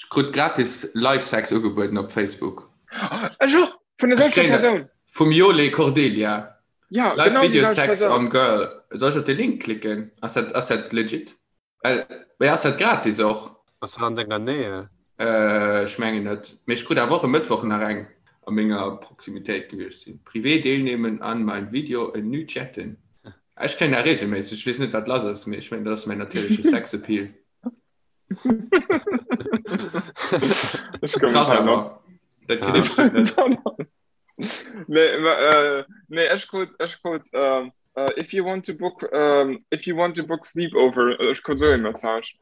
Ech krut gratis Live Sex ugebueden op Facebook. Ech och! Vun der selwechter Persoun! Vum Jole Cordelia. Ja, Live genau Video Sex on Girl. Soll ech op de Link klicken? Ass dat, ass dat legit? Well, mee ass dat gratis och? Ass dat an denger Nähe? Äh, ech mengen net. Mee ech krut awer och e Mëttwoch nach eng a menger Proximitéit gewiescht sinn. Privé deelnehmen an mein Video en nu chatten. Ech kréien dat regelméisseg. Ech weess net wat lass ass, mee ech mengen dat ass mäin natierleche Sexappeal. Krass awer. Dat kritt ee bestimmt net. Nee, ma, äh, nee, ech krut, ech krut, ähm, äh, if you want to book, ähm, if you want to book sleepover, äh, ech krut so e Message.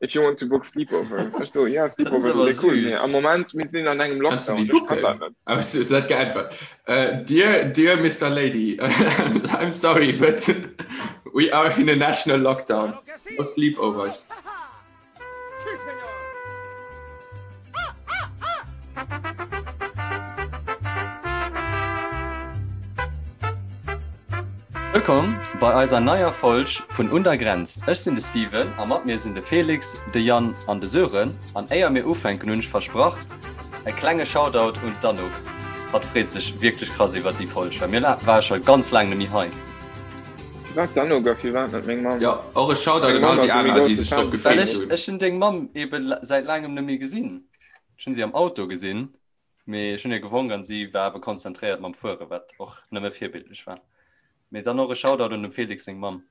If you want to book sleepover. Ech so, ja, Sleepover awer sind cool. Nee, süß. am Moment, mir sinn an engem Kannst du Lockdown, déi ech kann dat booken? net. Oh, du hues net geäntwert. Äh, dear, dear Mister Lady, I'm sorry, but we are in a national lockdown. No sleepovers. Wëllkomm bei eiser neier Folg vun Un der Grenz. Ech sinn de Steven a mat mir sinn de Felix, de Yann an de Sören. An éier mir ufänken hunn ech versprach, e klenge Shoutout un d'Anouk. Hatt freet sech wierklech krass iwwert déi Folg, well mir ware scho ganz laang net méi hei. Firwat d'Anouk a firwat net meng Mamm? Jo, och e Shoutout Meng un all Mamm déi ass e méi aner, déi grousse sech drop Fan. gefreet Well ech hunn. ech hunn deng Mamm ebe säit laangem net méi gesinn. Ech hunn si am Auto gesinn, mee ech hunn hir gewonk an si war awer konzentréiert mam Fueren, wat och nëmme virbildlech war. Mee dann och e Shoutout un dem Felix seng Mamm.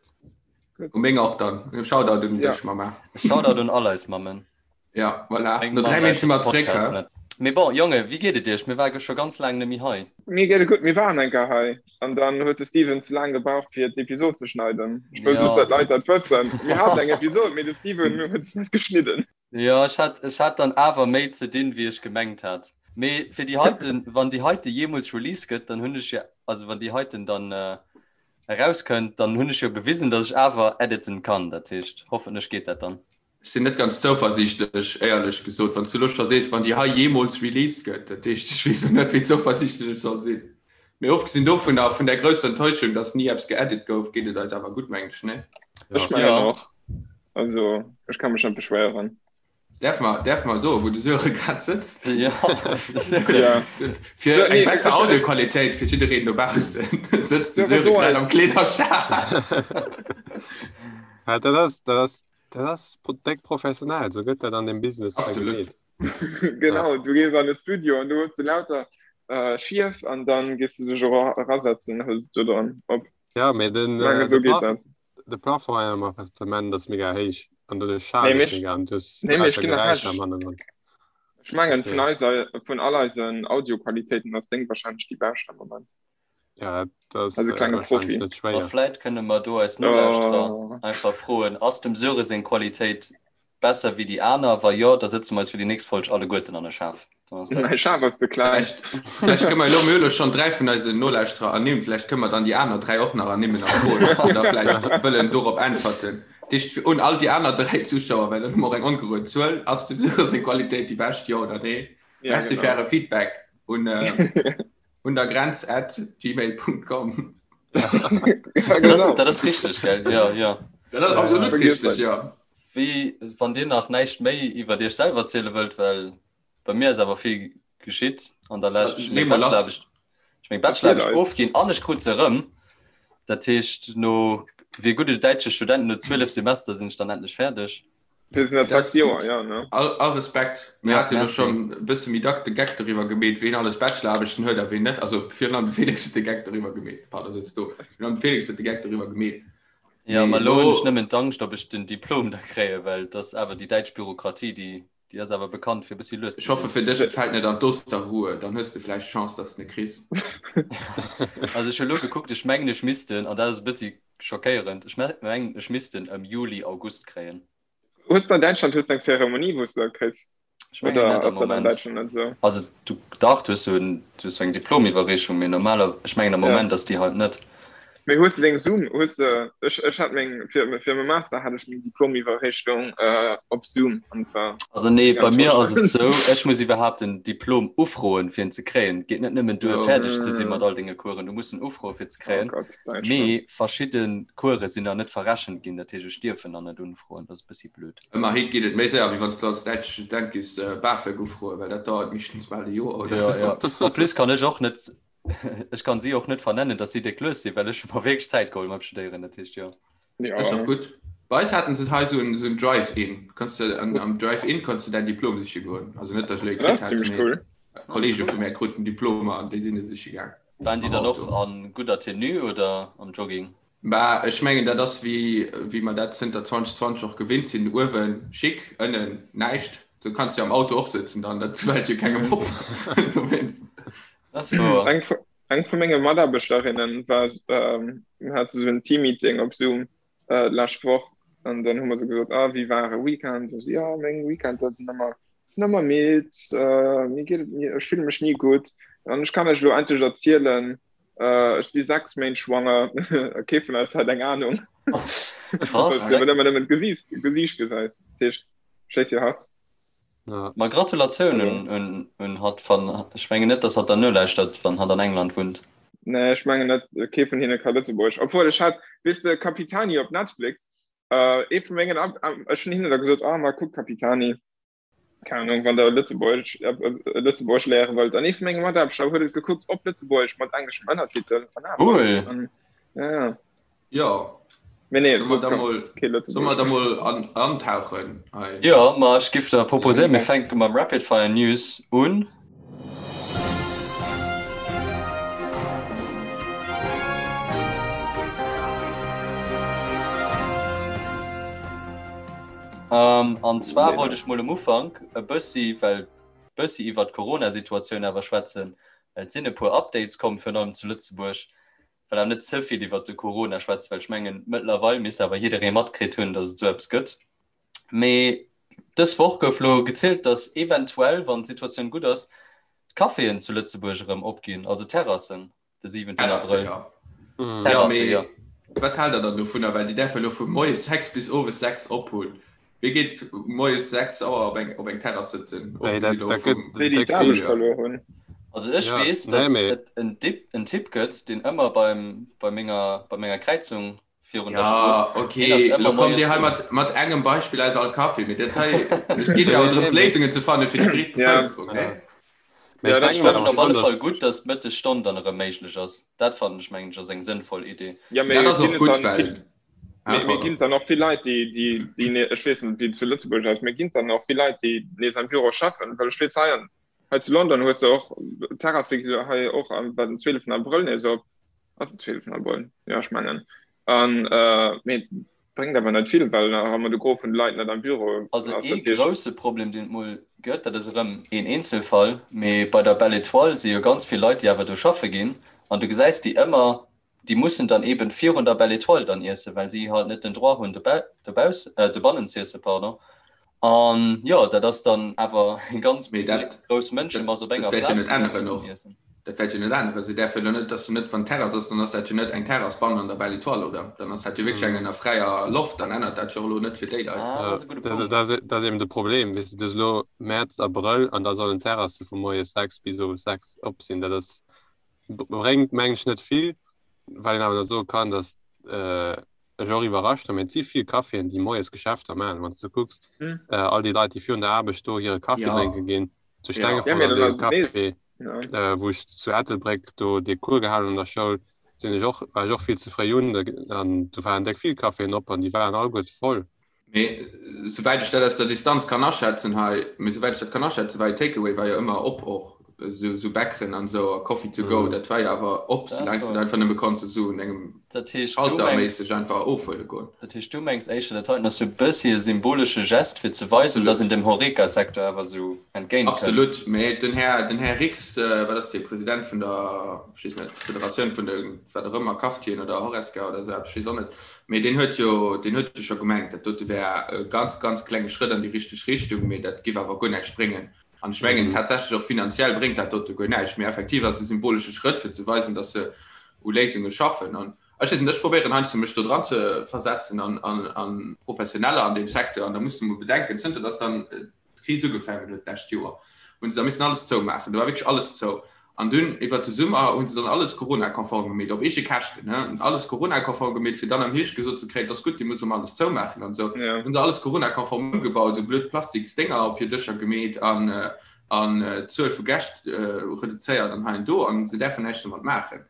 U meng och dann. E Shoutout un Ja. dech, Mamma. E Shoutout un all eis Mammen. Ja, voilà. Meng No Mamm 3 Méint si lauschtert mer de zréck, Podcast hä? net. Mee bon, Jonge, wéi geet et iech? Mir ware scho ganz laang net méi hei. Mir geet et gutt. Mir waren eng Kéier hei an dann huet de Steven ze laang gebraucht fir d'Episod ze schneiden. Ech wëll just Ja. dat d'Leit dat wëssen. Mir haten eng Episod, mee de Steven huet se net geschnidden. Jo, ech hat, ech hat dann awer méi ze dinn, wéi ech gemengt hat. Mee fir déi heiten, wann déi heite jeemools released gëtt, dann hunn ech jo, also wann déi heiten dann erauskënnt, dann hunn ech jo bewisen, datt ech awer editen kann. Dat heescht, hoffentlech geet dat dann. Ech sinn net ganz zouversiichtlech, éierlech gesot, wann s du elo scho sees, wann déi hei jeemools released gëtt. Dat heescht, ech weess och net, wéi zouversiichtlech ech soll sinn. Mee ofgesinn dovunner, vun där grousser Enttäuschung, datt ni eppes geedit gouf, geet et eis awer gutt, mengen ech, nee? Ech mengen Ja. och. Also, ech ka mech net beschwéieren. Däerfe mer, däerfe mer soen, wou de Sören grad sëtzt? Ja, Ja. Fir So, eng nee, besser ech, ech, Audioqualitéit fir jiddereen dobaussen sëtzt de Sören, Sören so grad eis. am Kleederschaf. Ja, dat ass, dat ass, dat ass pro- déck professionell. Sou gëtt dat an dem Business hei Absolut. gemeet. Ja. Genau, du gees an de Studio an du hues de lauter äh, Schief an dann gees du dech era erasetzen, hëls du dann op. Ja, mee den, Ich meine, äh, so de geet Plaf dat. de Plafond an engem Appartement ass mega héich an doduerch Nee, schaalt et mech, mega an du hues nee, mee ech lauter ginn nach Geräischer am recht. Hannergrond. Ech mengen, vun Dofir, eiser, vun all eisen Audioqualitéiten ass deng wahrscheinlech déi bescht am Moment. ja, dat ass Also äh, klenge wahrscheinlech Profi. net Ma schwéier. vläit kënne mer do eis Nolauschterer Oh. einfach froen, Ass dem Söre seng Qualitéit besser wéi déi aner? Wa jo, da sëtze mer eis fir déi nächst Folg alleguerten an e Schaf. Dann ass dat. Mäi Schaf ass ze kleng. Vläicht, vläicht kënne mer elo, mir hu elo schonn 3 vun eisen Nolauschterer ernimmt, vläicht kënne mer dann déi aner 3 och nach ernimmen a froen, ob se da vläicht wëllen dorop äntwerten. Dat heescht, fir un all déi aner 3 Zuschauer, well dann hu mer och eng ongerued Zuel, Ass dem Söre seng Qualitéit déi bescht, jo oder nee? Ja, Merci genau. fir äre Feedback un. Un der Grenz at gmail.com. Ja, Dat ass, genau. dat ass richteg, gell? Ja, ja. Dat ass absolut Vergiess richteg, net. ja. Wéi, wann Dir nach näischt méi iwwer Iech selwer erziele wëllt, well bei mir ass awer vill geschitt an der Lescht. Ech hu Lee meng mol lass. Bachelor-Aarbecht, ech meng Erziel Bachelor-Aarbecht eis. ofginn an ech krut se erëm. Dat heescht, no, wéi e gudde däitsche Student, no 12 Semester sinn ech dann endlech fäerdeg. Wir sind Dat sechs ass Joer, gutt. ja, ne? All, all Respekt. Mir Ja, hate jo merci. schonn e bësse méi dack de Geck doriwwer gemeet, ween alles Bachelor-Aarbechten huet a ween net. Also virun allem de Felix huet de Geck doriwwer gemeet. Pardon, sëtz do. Virun allem de Felix huet de Geck doriwwer gemeet. Ja, Mee ma elo hunn ech elo, nëmmen d'Angscht, ob ech den Diplom da kréien, well et ass awer déi däitsch Bürokratie, déi, déi ass awer bekannt fir e bëssi lues ech ze hoffe sinn. fir dech, et fält net an d'Osterruhe, dann hues de vläicht Chance, dass de en kriss. Also ech hu elo gekuckt, ech mengen ech misst en, an dat ass e bëssi schockéierend, ech mengen ech misst en ëm Juli, August kréien. Hues de an Däitschland hues de eng Zeremonie wou s de dat kriss? Ech mengen Oder net am ass dat an Moment. Däitschland net esou? Also du, dach, du hues sou en, du hues sou eng Diplomiwwerreechung, mee normaler, ech mengen am Ja. Moment ass déi halt net. Mee hues de deng Zoom, hues de, ech, ech hat meng, fir, fir mäi Master hat ech meng Diplomiwwerreechung äh, op Zoom an et war Also nee, ganz bei mir toll. ass et sou, ech muss iwwerhaapt en Diplom ufroen, fir en ze kréien. Et geet net nëmmen duer, Oh. fäerdeg ze si Mm. mat all denge Coursen, du muss en ufroen, fir ze Oh kréien. Gott, Däitschland. Mee verschidde Course sinn nach net verrechent ginn, dat heescht, ech dierf en nach net unfroen. Dat ass e bëssi blöd. Ëmmerhi geet et méi séier, wéi wann s du als däitsche Student giss BAföG ufroen, well dat dauert meeschtens bal e Joer oder Ja, sou. ja. En plus kann ech och net, ech kann si och net vernennen, datt si déck lues sinn, well ech hu mer wierklech Zäit geholl mam Studéieren, dat heescht, jo. Ass och Ja. gutt. Bei eis haten se hei esou en, esou en Drive-In. Kanns de an, am Drive-In kanns de däin Diplom siche goen. Also net, datt ech elo ee Dat kritt ass hätt, zimmlech mee cool. Kollege vu mär kruten Diplomer an déi sinn e siche gaang Waren déi am dann och Auto. a gudder Tenue oder am Jogging? Bah, ech mengen, dat ass wéi, wéi mer dat zënter 2020 och gewinnt sinn, uewen chic, ënnen näischt. Sou kanns de jo am Auto och sëtzen dann, dat fält jo kengem op dowéinst. Dat ass wouer. Eng vu, eng vu menge Mataarbechterinnen war, ähm, hat esou en Teammeeting op Zoom äh, d'lescht Woch an dann hu mer sou gesot, ah, wéi war e Weekend? A si, ja, meng Weekender sinn ëmmer, sinn ëmmer midd, äh, mir geet et ni, ech fille mech ni gutt an ech kann lech elo endlech erzielen, Äh, ech si 6 Méint schwanger. Kee vun eis hat eng Ahnung. Krass. Well ëmmer nëmmen d'Gesiicht Gesiicht gesäis. Dat heescht, schéi fir hatt. Ja. Ma Gratulatioun un, un, un hatt. Wann, ech mengen net, dass hatt dann nolauschtert, wann hatt an England wunnt. Nee, ech mengen net, kee vun hinne ka Lëtzebuergesch. Obwuel ech hat, weess de, Capitani op Netflix, äh, ee vu mengen, ech hunn hinne da gesot, ah, ma kuck Capitani. Keine Ahnung, wann der Lëtzebuergesch äh, äh, Lëtzebuergesch léiere wëllt. An ee vu menge Mataarbechter huet et gekuckt op Lëtzebuergesch mat engleschem Ënnertitel. An awer. Cool. An, ja, ja. Jo. Mee nee, Soll mer soss da kann mol, kee soll mer Lëtzebuergesch. da mol an, antauchen hei? Jo, ma ech giff der proposéieren, mir fänke mam Rapid Fire News un. An zwar wollt ech mol um Ufank e bëssi, well bëssi iwwert d'Corona-Situatioun awer schwätzen, well et sinn e puer Updates komm, virun allem zu Lëtzebuerg. Well awer net ze vill iwwert de Corona schwätzen, well ech mengen, mëttlerweil misst awer jidderee matkritt hunn, datt et esou eppes gëtt. Mee dës Woch gouf lo gezielt, datt eventuell, wann d'Situatioun gutt ass, d'Caféen zu Lëtzebuerg erëm opginn, also d'Terrassen. De 7. Terrasse, Abrëll. ja. Mm. Ja, Terrasse, mee ja. wat haalt der dann dovunner? Well déi däerfe lo vu moies 6 bis owes 6 op hunn. Wie geet moies 6 Auer op eng, op eng Terrass sëtzen? Nee, dat, Ofgesi lo dat gëtt vum Déi, déi déck vill. d'Aarbecht Fréijoer. verluer hunn. Also ech Ja, weess, nee, dass mee et en Dip, en Typ gëtt, deen ëmmer beim, bei menger, bei menger Kräizung virun der Ja, Strooss, deen ass okay, ëmmer lo kommt moies Dir hei do. mat, mat engem Beispill aus all Café, mee dat hei, et geet jo nee, awer drëms, nee, mee Léisungen ze fanne fir déi breet Ja, Bevëlkerung, ja. ne? Mee ja, ech dat Ech denken fannen awer op alle schonn, Fall dass gutt, dass d'Mëttesstonn dann erëm méiglech ass. Dat fannen ech, mengen ech, ass eng sënnvoll Idee. Ja, Dat mee ass ginn och et gutt, dann well, vill, ah, mee, mee pardon. ginn et dann och vill Leit, déi, déi, déi, ne, ech weess net, wéi et zu Lëtzebuerg ass, mee ginn et dann och vill Leit, déi nees am Büro schaffen? Well ech weess, hei an, hei zu London hues de och, d'Terrasse gi hei och am, war den 12. Abrëll nees op. Ass den 12. Abrëll? Jo, ech mengen. An, äh, mee Bréngt awer net vill, well nach ëmmer de Gros vun de Leit net am Büro Also ass. ee Dat heescht. grousse Problem, deen et mol gëtt, dat ass erëm een Eenzelfall, mee bei der Belle Etoile si jo ganz vill Leit, déi awer do schaffe ginn an du gesäis déi ëmmer, déi mussen dann eeben virun der Belle Etoile dann iessen, well si halt net den Droit hunn dobauss, dobannen z'iessen, pardon. An jo, dat ass dann awer eng ganz Mee dat, grouss dat, Mënschemass op dat enger wäert jo Plaz, net déi dann änneren zesummen och. iessen. Dat wäert jo net änneren. Se däerfe jo net, dass se net, wann d'Terrass ass, dann ass dat jo net eng Terrass bannen an der Belle Etoile, oder? Dann ass dat jo wierklech eng an der fräier Loft, dann ännert dat jo och elo net fir déi Leit. Ah, dat ass e gudde Punkt. Dat ass eben de Problem, weess de, du hues elo Mäerz, Abrëll an da sollen d'Terrasse vu moies 6 bis owes 6 op sinn. Dat ass, bréngt, mengen ech, net vill, well een awer da soe kann, dass ech och iwwerrascht war, mee et si vill Caféen, déi moies Geschäfter maachen. Wann s de kucks, all déi Leit, déi virun der Aarbecht do hire Kaffi drénke ginn, zu Stengefort ass ee Café, wou ech zu Ettelbréck do dee Cours gehalen hunn an der Schoul, sinn ech och, war ech och vill ze fréi un, an do waren déck vill Caféen op an déi waren alleguerte voll. Mee souwäit ech dat aus der Distanz kann aschätzen hei, mee souwäit ech dat kann aschätzen, war jo Takeaway war jo ëmmer op och, esou esou Bäckeren an esou a Coffee to go, dat war jo awer op, soulaang s de dat einfach nëmme konns esou un engem Dat heescht, du Schalter mengs, méisseg einfach ofhuele goen. dat heescht, du mengs éischter, dat heiten ass sou e bëssi e symbolesche Gest, fir ze weisen, dass een Absolut. dem Horeca-Secteur awer sou entgéint kënnt. Absolut, mee den Här, den Här Rix, wat ass dee, President vun der, ech weess net, Federatioun vun de wat och ëmmer, Cafetieren oder Horesca oder esou eppes, ech weess och net, Mee deen huet jo, deen huet jo scho gemengt, dat dote wär e ganz, ganz klenge Schrëtt an déi richteg Richtung, mee dat giff awer guer näischt bréngen. An ech mengen tatsächlech och finanziell bréngt dat dote guer näischt, mee effektiv ass et e symbolesche Schrëtt, fir ze weisen, datt se u Léisunge schaffen. An Ech weess net, ech probéieren heiansdo mech do dran ze versetzen an, an, an Professioneller an deem Secteur an da muss de mol bedenken, zënter datt dann d'Kris ugefaangen huet d'lescht Joer, hunn se da missen alles zoumaachen. Do war wierklech alles zou. An dunn iwwert de Summer hu se dann alles Corona-konform gemeet, op eege Käschten, ne, alles Corona-konform gemeet, fir dann am Hierscht gesot ze kréien, et ass gutt, Dir musst erëm alles zoumaachen an esou. Hunn se alles Corona-konform ëmgebaut, esou blöd Plastiksdénger op hir Dëscher gemeet an an d'Zuel vu Gäscht reduzéiert an hei an do, an se däerfen näischt domat maachen.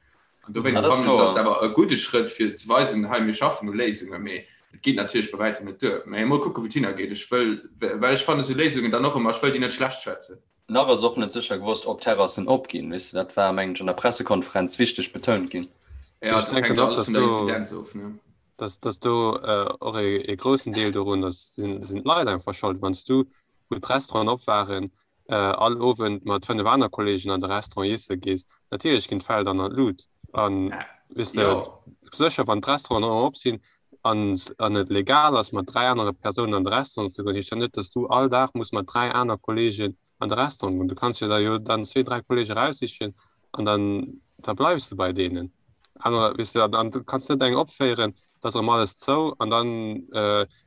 An dowéinst fannen ech, ass et awer e gudde Schrëtt, fir ze weisen, hei, mir schaffen u Léisungen, mee et geet natierlech bei wäitem net duer. Mä emol kucken, wou et hinnergeet. Ech wëll, well ech fannen esou Léisungen dann och ëmmer, ech wëll déi net schlecht schwätzen. Nach ass och net sécher gewosst, ob d'Terrassen opginn. Weess de, dat war, mengen ech, an der Pressekonferenz wichteg betount ginn. Jo, dat hänkt jo alles vun der Inzidenz of, ne? Dass, dass do och ee groussen Deel dorun ass, sinn d'Leit einfach schold. Wann s du, wou d'Restauranten op waren, all Owend mat 5 aner Kolleegen an de Restaurant iesse gees, natierlech ginn d'Fäll dann an d'Lut. An weess de, sécher, wann d'Restauranten erëm op sinn an an et legal ass, mat 3 anere Persounen an de Restaurant ze goen, heescht dat net, dass du all Dag muss mat 3 aner Kolleegen an de Restaurant goen. Du kanns jo der jo dann zwee, 3 Kolleege raussichen an dann da bleifs de bei deenen. Anerer, weess de, an du kanns net eng opféieren, da ass erëm alles zou an dann,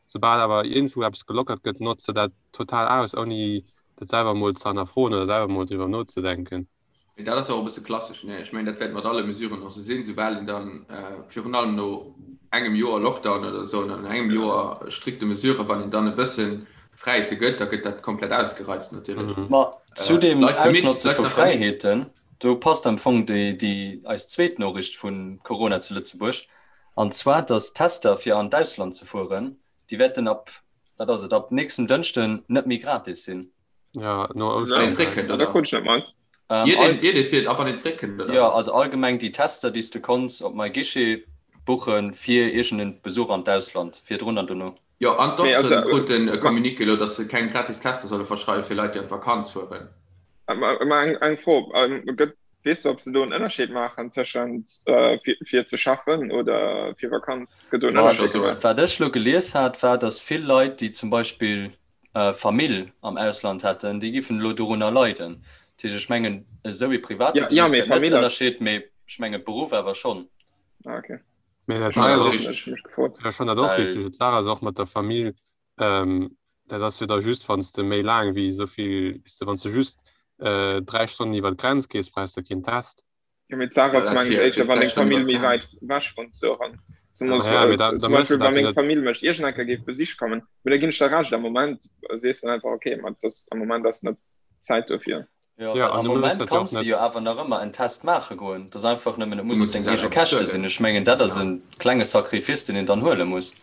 soubal awer iergendwou eppes gelockert gëtt, notz de dat total aus, ouni dat selwer emol ze hannerfroen oder selwer emol driwwer nozedenken. Mee dat ass jo och e bësse klassesch, ne? Ech mengen, dat wäert mat alle Mesuren och esou sinn, soubal een dann, virun allem no engem Joer Lockdown oder esou, no engem Joer strikte Mesuren, wann een dann e bësse Fräiheete gëtt, da gëtt dat komplett ausgereizt natierlech. Ma zu deem Ausnotze vu Fräiheeten, do passt am Fong déi, déi eis zweet Noriicht vu Corona zu Lëtzebuerg, an zwar, datt d'Tester fir an d'Ausland ze fueren, déi wäerten ab, wat ass et, ab nächstem Dënschden net méi gratis sinn. Ja, no Ouschteren. Wann een zréckkënnt, oder? Ähm, Jeder, jeder fiert, a wann een zréckkënnt, oder? Ja, also allgemeng déi Tester, déi s du konns op MyGuichet buchen fir iergend Besuch an d'Ausland, virdrun an dono. Jo, an d'Dokteren kruten e Communiqué elo, datt se keng gratis Tester solle verschreiwen fir Leit, déi an d'Vakanz fueren. Mä eng Fro, gëtt, weess du, ob se do en Ënnerscheed maachen tëschent fir ze schaffen oder fir Vakanz? Gëtt do en Ënnerscheed gemaach? Wat ech elo gelies hat, war, datt vill Leit, déi zum Beispill Famill am Ausland hätten, déi giffen elo dorunner leiden. Dat heescht, ech mengen, esou ee private Besuch gëtt net ënnerscheet, mee ech mengen Beruff awer schonn. Ah, okay. Mee dat hei ass och, ech fannen dat och richteg. D'Saach ass och mat der Famill, dat ass jo da just, wann s de méi laang wéi esou vill, weess de, wann s de just 3 Stonnen iwwer d'Grenz gees, brauchs de keen Test. Jo, mee d'Saach ass, mengen ech, éischter, wann deng Famill méi wäit ewech wunnt, Sören. Zemools, Ja, mee da, zum da méchs Beispill, de wa dat jo meng net. Famill mech iergend eng Kéier géif besiche kommen, mee da ginn ech der Recht, am Moment sees du dann einfach, okay, ma dat ass, am Moment ass net d'Zäit dofir. Jo, Ja, well an am du méchs Moment dat jo och kanns de net. jo awer nach ëmmer en Test maache goen. Dat ass einfach nëmmen, et Du muss op muss deng se eege selwer Käschte bezuelen. sinn. Ech mengen, dat ass Genau. e klenge Sacrifice, deen een dann huele muss.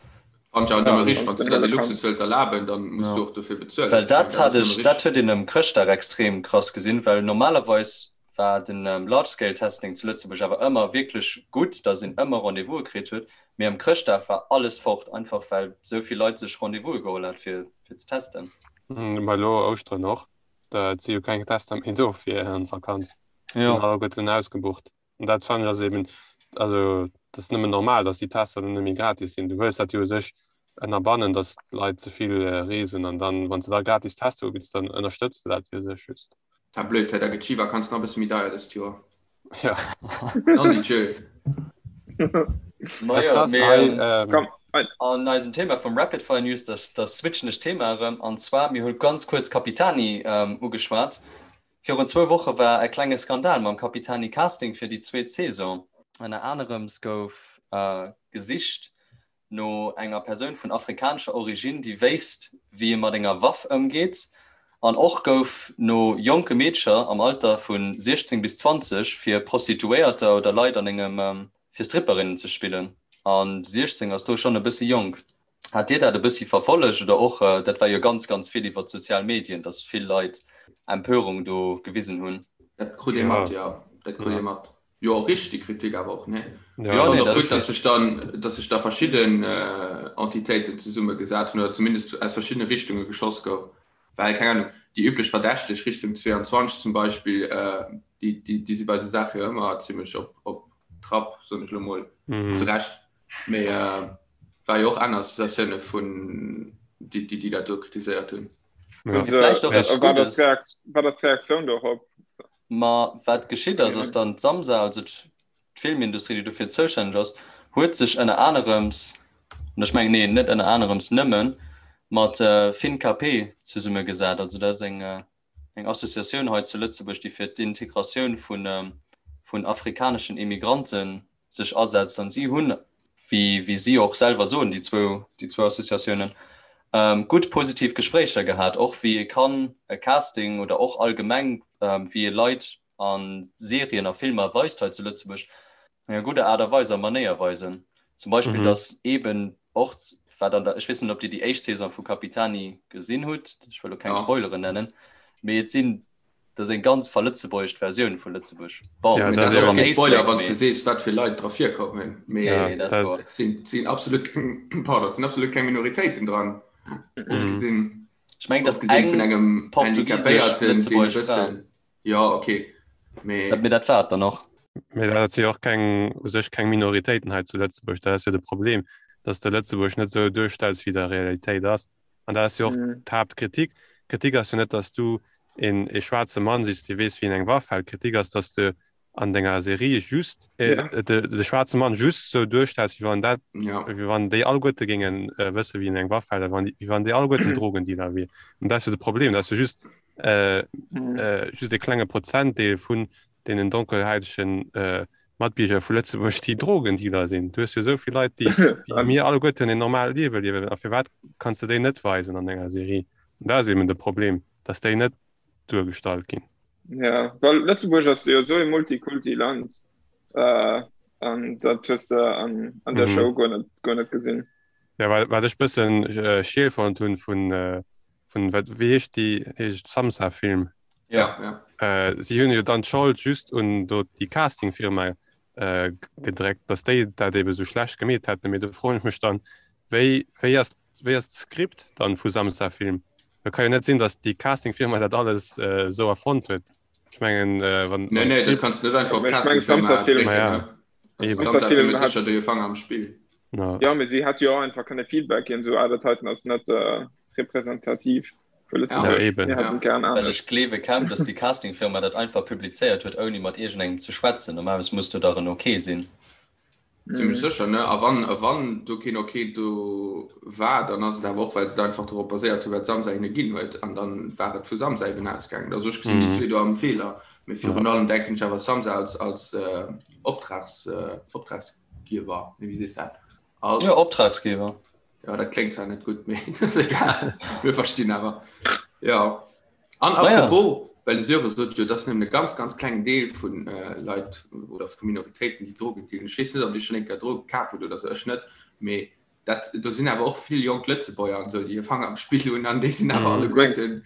Fannt ech awer Ja, nëmme richteg, wann wann s s de du der huele dee Luxus kanns. wëlls erlaben, dann muss du Ja. och dofir bezuelen. Well Ech mengen, dat dat hat ass nëmme ech, dat richteg. huet een ëm Chrëschtdag extrem krass gesinn, well normalerweis war den Large Scale Testing zu Lëtzebuerg awer ëmmer wierklech gutt, datt een ëmmer Rendez-vouse kritt huet, mee ëm Chrëschtdag war alles fort, einfach well esou vill Leit sech Rendez-vouse geholl hat fir fir ze testen. Ma elo Ouschteren och, et si jo keng Tester méi do fir an d'Vakanz, sinn Jo. alleguerten ausgebucht. An dat fannen ech ass eben, also dat ass nëmmen normal, datt déi Tester dann net méi gratis sinn. Du wëlls dat jo u sech ënnerbannen, datt d'Leit ze vill reesen an dann, wann s de da gratis Tester ubidds, dann ënnerstëtz de dat jo u sech just. Ta blöd, hei, da gëtt d'Schivakanz nach e bësse méi deier dëst Joer. Ja. Non di Dieu. Ma Ass jo, krass, mee hei, ähm, Komm, hei. an eisem Thema vum Rapid Fire News, da, da switchen ech d'Thema erëm. An zwar, mir hu ganz kuerz Capitani ähm, ugeschwat. Virun zwou Woche war e klenge Skandal mam Capitani Casting fir déi zweet Saison. Ënner anerems gouf gesicht no enger Persoun vun afrikanescher Originn, déi wéisst, wéi ee mat enger Waff ëmgeet. An och gouf no jonke Meedcher am Alter vu 16 bis 20 fir Prostituéierter oder Leit an engem fir Stripperinnen ze spillen. A 16 ass do schonn e bëssi jonk. Hat Dir dat e bëssi verfollegt oder och, dat war jo ganz, ganz vill iwwer d'sozial Medien, datt vill Leit Empörung do gewisen hunn? Dat krut ee mat, jo. Dat krut ee mat. Jo, richteg Kritik awer och, nee? Jo, Ech nee, fannen och dat ass gutt, datt sech richteg. dann, datt sech da verschidden Entitéiten zesummegesat hunn oder zumindest aus verschiddene Richtunge geschoss gouf. Well, keng Ahnung, déi üblech Verdächteg Richtung 22 zum Beispill, déi, déi, déi si bei esou Saache jo ëmmer zimmlech op, op Trapp, soen ech elo mol, zu Recht. Mee war jo och aner Associatioune vun déi, déi dat do kritiséiert hunn. Ja. Vläicht och eppes Wat ass Guddes. d'Reakt- wat ass d'Reaktioun dorop? Ma wat geschitt ass, ass dann d'Samsa, also d'Filmindustrie, déi dofir zoustänneg ass, Huet sech ënner anerems, an ech mengen, nee, net ënner anerems, nëmmen mat FinKP zesummegesat. Also dat ass eng, eng Associatioun hei zu Lëtzebuerg, déi fir d'Integratioun vun, vun afrikaneschen Immigranten sech asetzt. An si hunn, wéi, wéi si och selwer soen, déi zwou, déi zwou Associatiounen, gutt positiv Gespréicher gehat, och wéi ee kann e Casting oder och allgemeng wéi ee Leit a Serien a Filmer weist hei zu Lëtzebuerg, an enger gudder Aart a Weis a Manéier weisen. Zum Beispill, mhm. dass eben och wat an der, ech weess net, ob Dir déi éischt Saison vu Capitani gesinn hutt, ech wëll lo keng ja. Spoileren nennen, mee et sinn dat eng ganz verlëtzebuergescht Versioun vu Lëtzebuerg. Bon, ja, dat ass och kee Spoiler, wann du sees, wat fir Leit dra virkommen. Mee ja, dat sinn, sinn absolut, pardon, sinn absolut keng Minoritéiten dran. Mhm. Ofgesinn, ech meng, dass eng vun engem portugisesch Lëtzebuergesch Fra. Jo, ok. Mee. Dat, mee dat war et dann och. Mee dat si och keng, u sech keng Minoritéiten hei zu Lëtzebuerg. Dat ass jo de Problem, dass de Lëtzebuerg net esou duerstells, wéi et a Realitéit ass. An dat ass jo och d'Haaptkritik. D'Kritik ass jo net, dass du een ee schwaarze Mann sichs, dee weess, wéi een eng Waff hält. D'Kritik ass, dass de an denger Serie just de schwaarze Mann just esou duerstells, wéi wann dat, wéi wann déi alleguerte géinge wësse, wéi een eng Waff hält, a wéi wann déi alleguerten Drogendealer wier. An dat ass jo de Problem, dass du just äh, mhm. äh, just e klenge Prozentdeel vun deenen donkelhäitegen äh, Matbierger vu Lëtzebuerg, déi Drogendealer sinn. Du hues jo esou vill Leit, déi, déi mir alleguerten en normaalt Liewe liewen. A firwat kanns du déi net weisen an enger Serie? An dat ass eben de Problem, dass déi net duergestallt ginn. Ja, well Lëtzebuerg ass jo esou e Multikulti-Land. Äh, an dat hues de an, an der mhm. Show guer net, guer net gesinn. Ja, wat, wat ech bëssen äh, schiel fonnt hunn vun äh, vun wat wéi heescht déi heescht Samsa Film ja, ja. Äh, si hunn jo dann d'Schold just un do déi Castingfirma äh, gedréckt, dass déi dat ebe sou schlecht gemeet hätten. Mee do froen ech mech dann, wéi wéi ass wéi ass d'Skript dann vu Samsa Film? Da kann jo net sinn, dass déi Castingfirma dat alles äh, sou erfonnt huet. Ech mengen äh, wann Nee, nee, dat kanns du net einfach op Castingfirma drécken. Ja. Also, Samsa Film huet sécher do hir Fanger am Spill. No. Ja, mee si hätt jo och einfach kënne Feedback ginn, sou ah, dat heiten ass net äh, representativ fir Lëtzebuerg. Ja, eben. Mir hätten gern Well anescht. ech gleewe kaum, dass déi Castingfirma dat einfach publizéiert huet, ouni mat iergendengem ze schwätzen. Normalerweis muss do dach en Ok sinn. Zimmlech sécher, ne? A wann, a wann do keen Ok do war, dann ass et awer och, well se et einfach dorop baséiert hunn, wat Samsa hinne ginn huet. An dann war et vu Samsa eben ausgaangen. Also ech gesinn déi zwee do am Feeler. Mee virun allem denken ech awer Samsa als, als äh, Optrags, äh, Optrags, Giewer, nee, wéi sees dat? Als, ja, Optragsgeber. Ja, dat kléngt zwar net gutt, mee egal. Mir verstinn awer. Ja. An apropos, ja. well de Sören sot jo, dat ass nëmmen e ganz, ganz klengen Deel vun äh, Leit oder vu Minoritéiten, déi Drogen dealen. Ech weess net, ob Dir schonn eng Kéier Droge kaf hutt oder sou, ech net, mee dat, do sinn awer och vill jonk Lëtzebuerger an esou, déi hir Fanger am Spill hunn an déi sinn awer mm. alleguerten.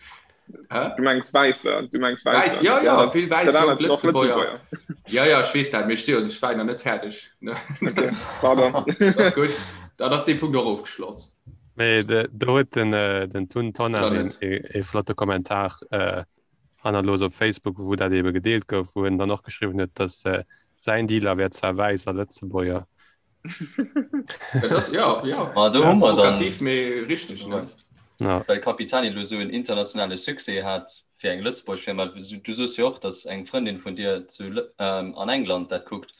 Hä? Du mengs Wäisser, du mengs Wäisser. Wäiss, ja, ja, vill wäiss jonk Lëtzebuerger. Ja, ja, ech weess dat, mee ech si jo, ech war nach net fäerdeg. Okay, pardon. Dat ass gutt. Dann ass dee Punkt och ofgeschloss. Mee do huet den, äh, den Tun Tonnar een, e, e flotte Kommentar äh, hannerlos op Facebook, wou dat ebe gedeelt gouf, wou en dann och geschriwwen huet, dass äh, säin Dealer wär zwar wäiss a Lëtzebuerger, Dat ass, ja, ja. Ma do hu mer dann Provokativ, mee richteg, ne? Ja. Well Capitani elo esou en internationale Succès hat fir eng Lëtzebuerg Firma. Du soos jo och, datt eng Frëndin vun dir zu ähm, an England dat kuckt.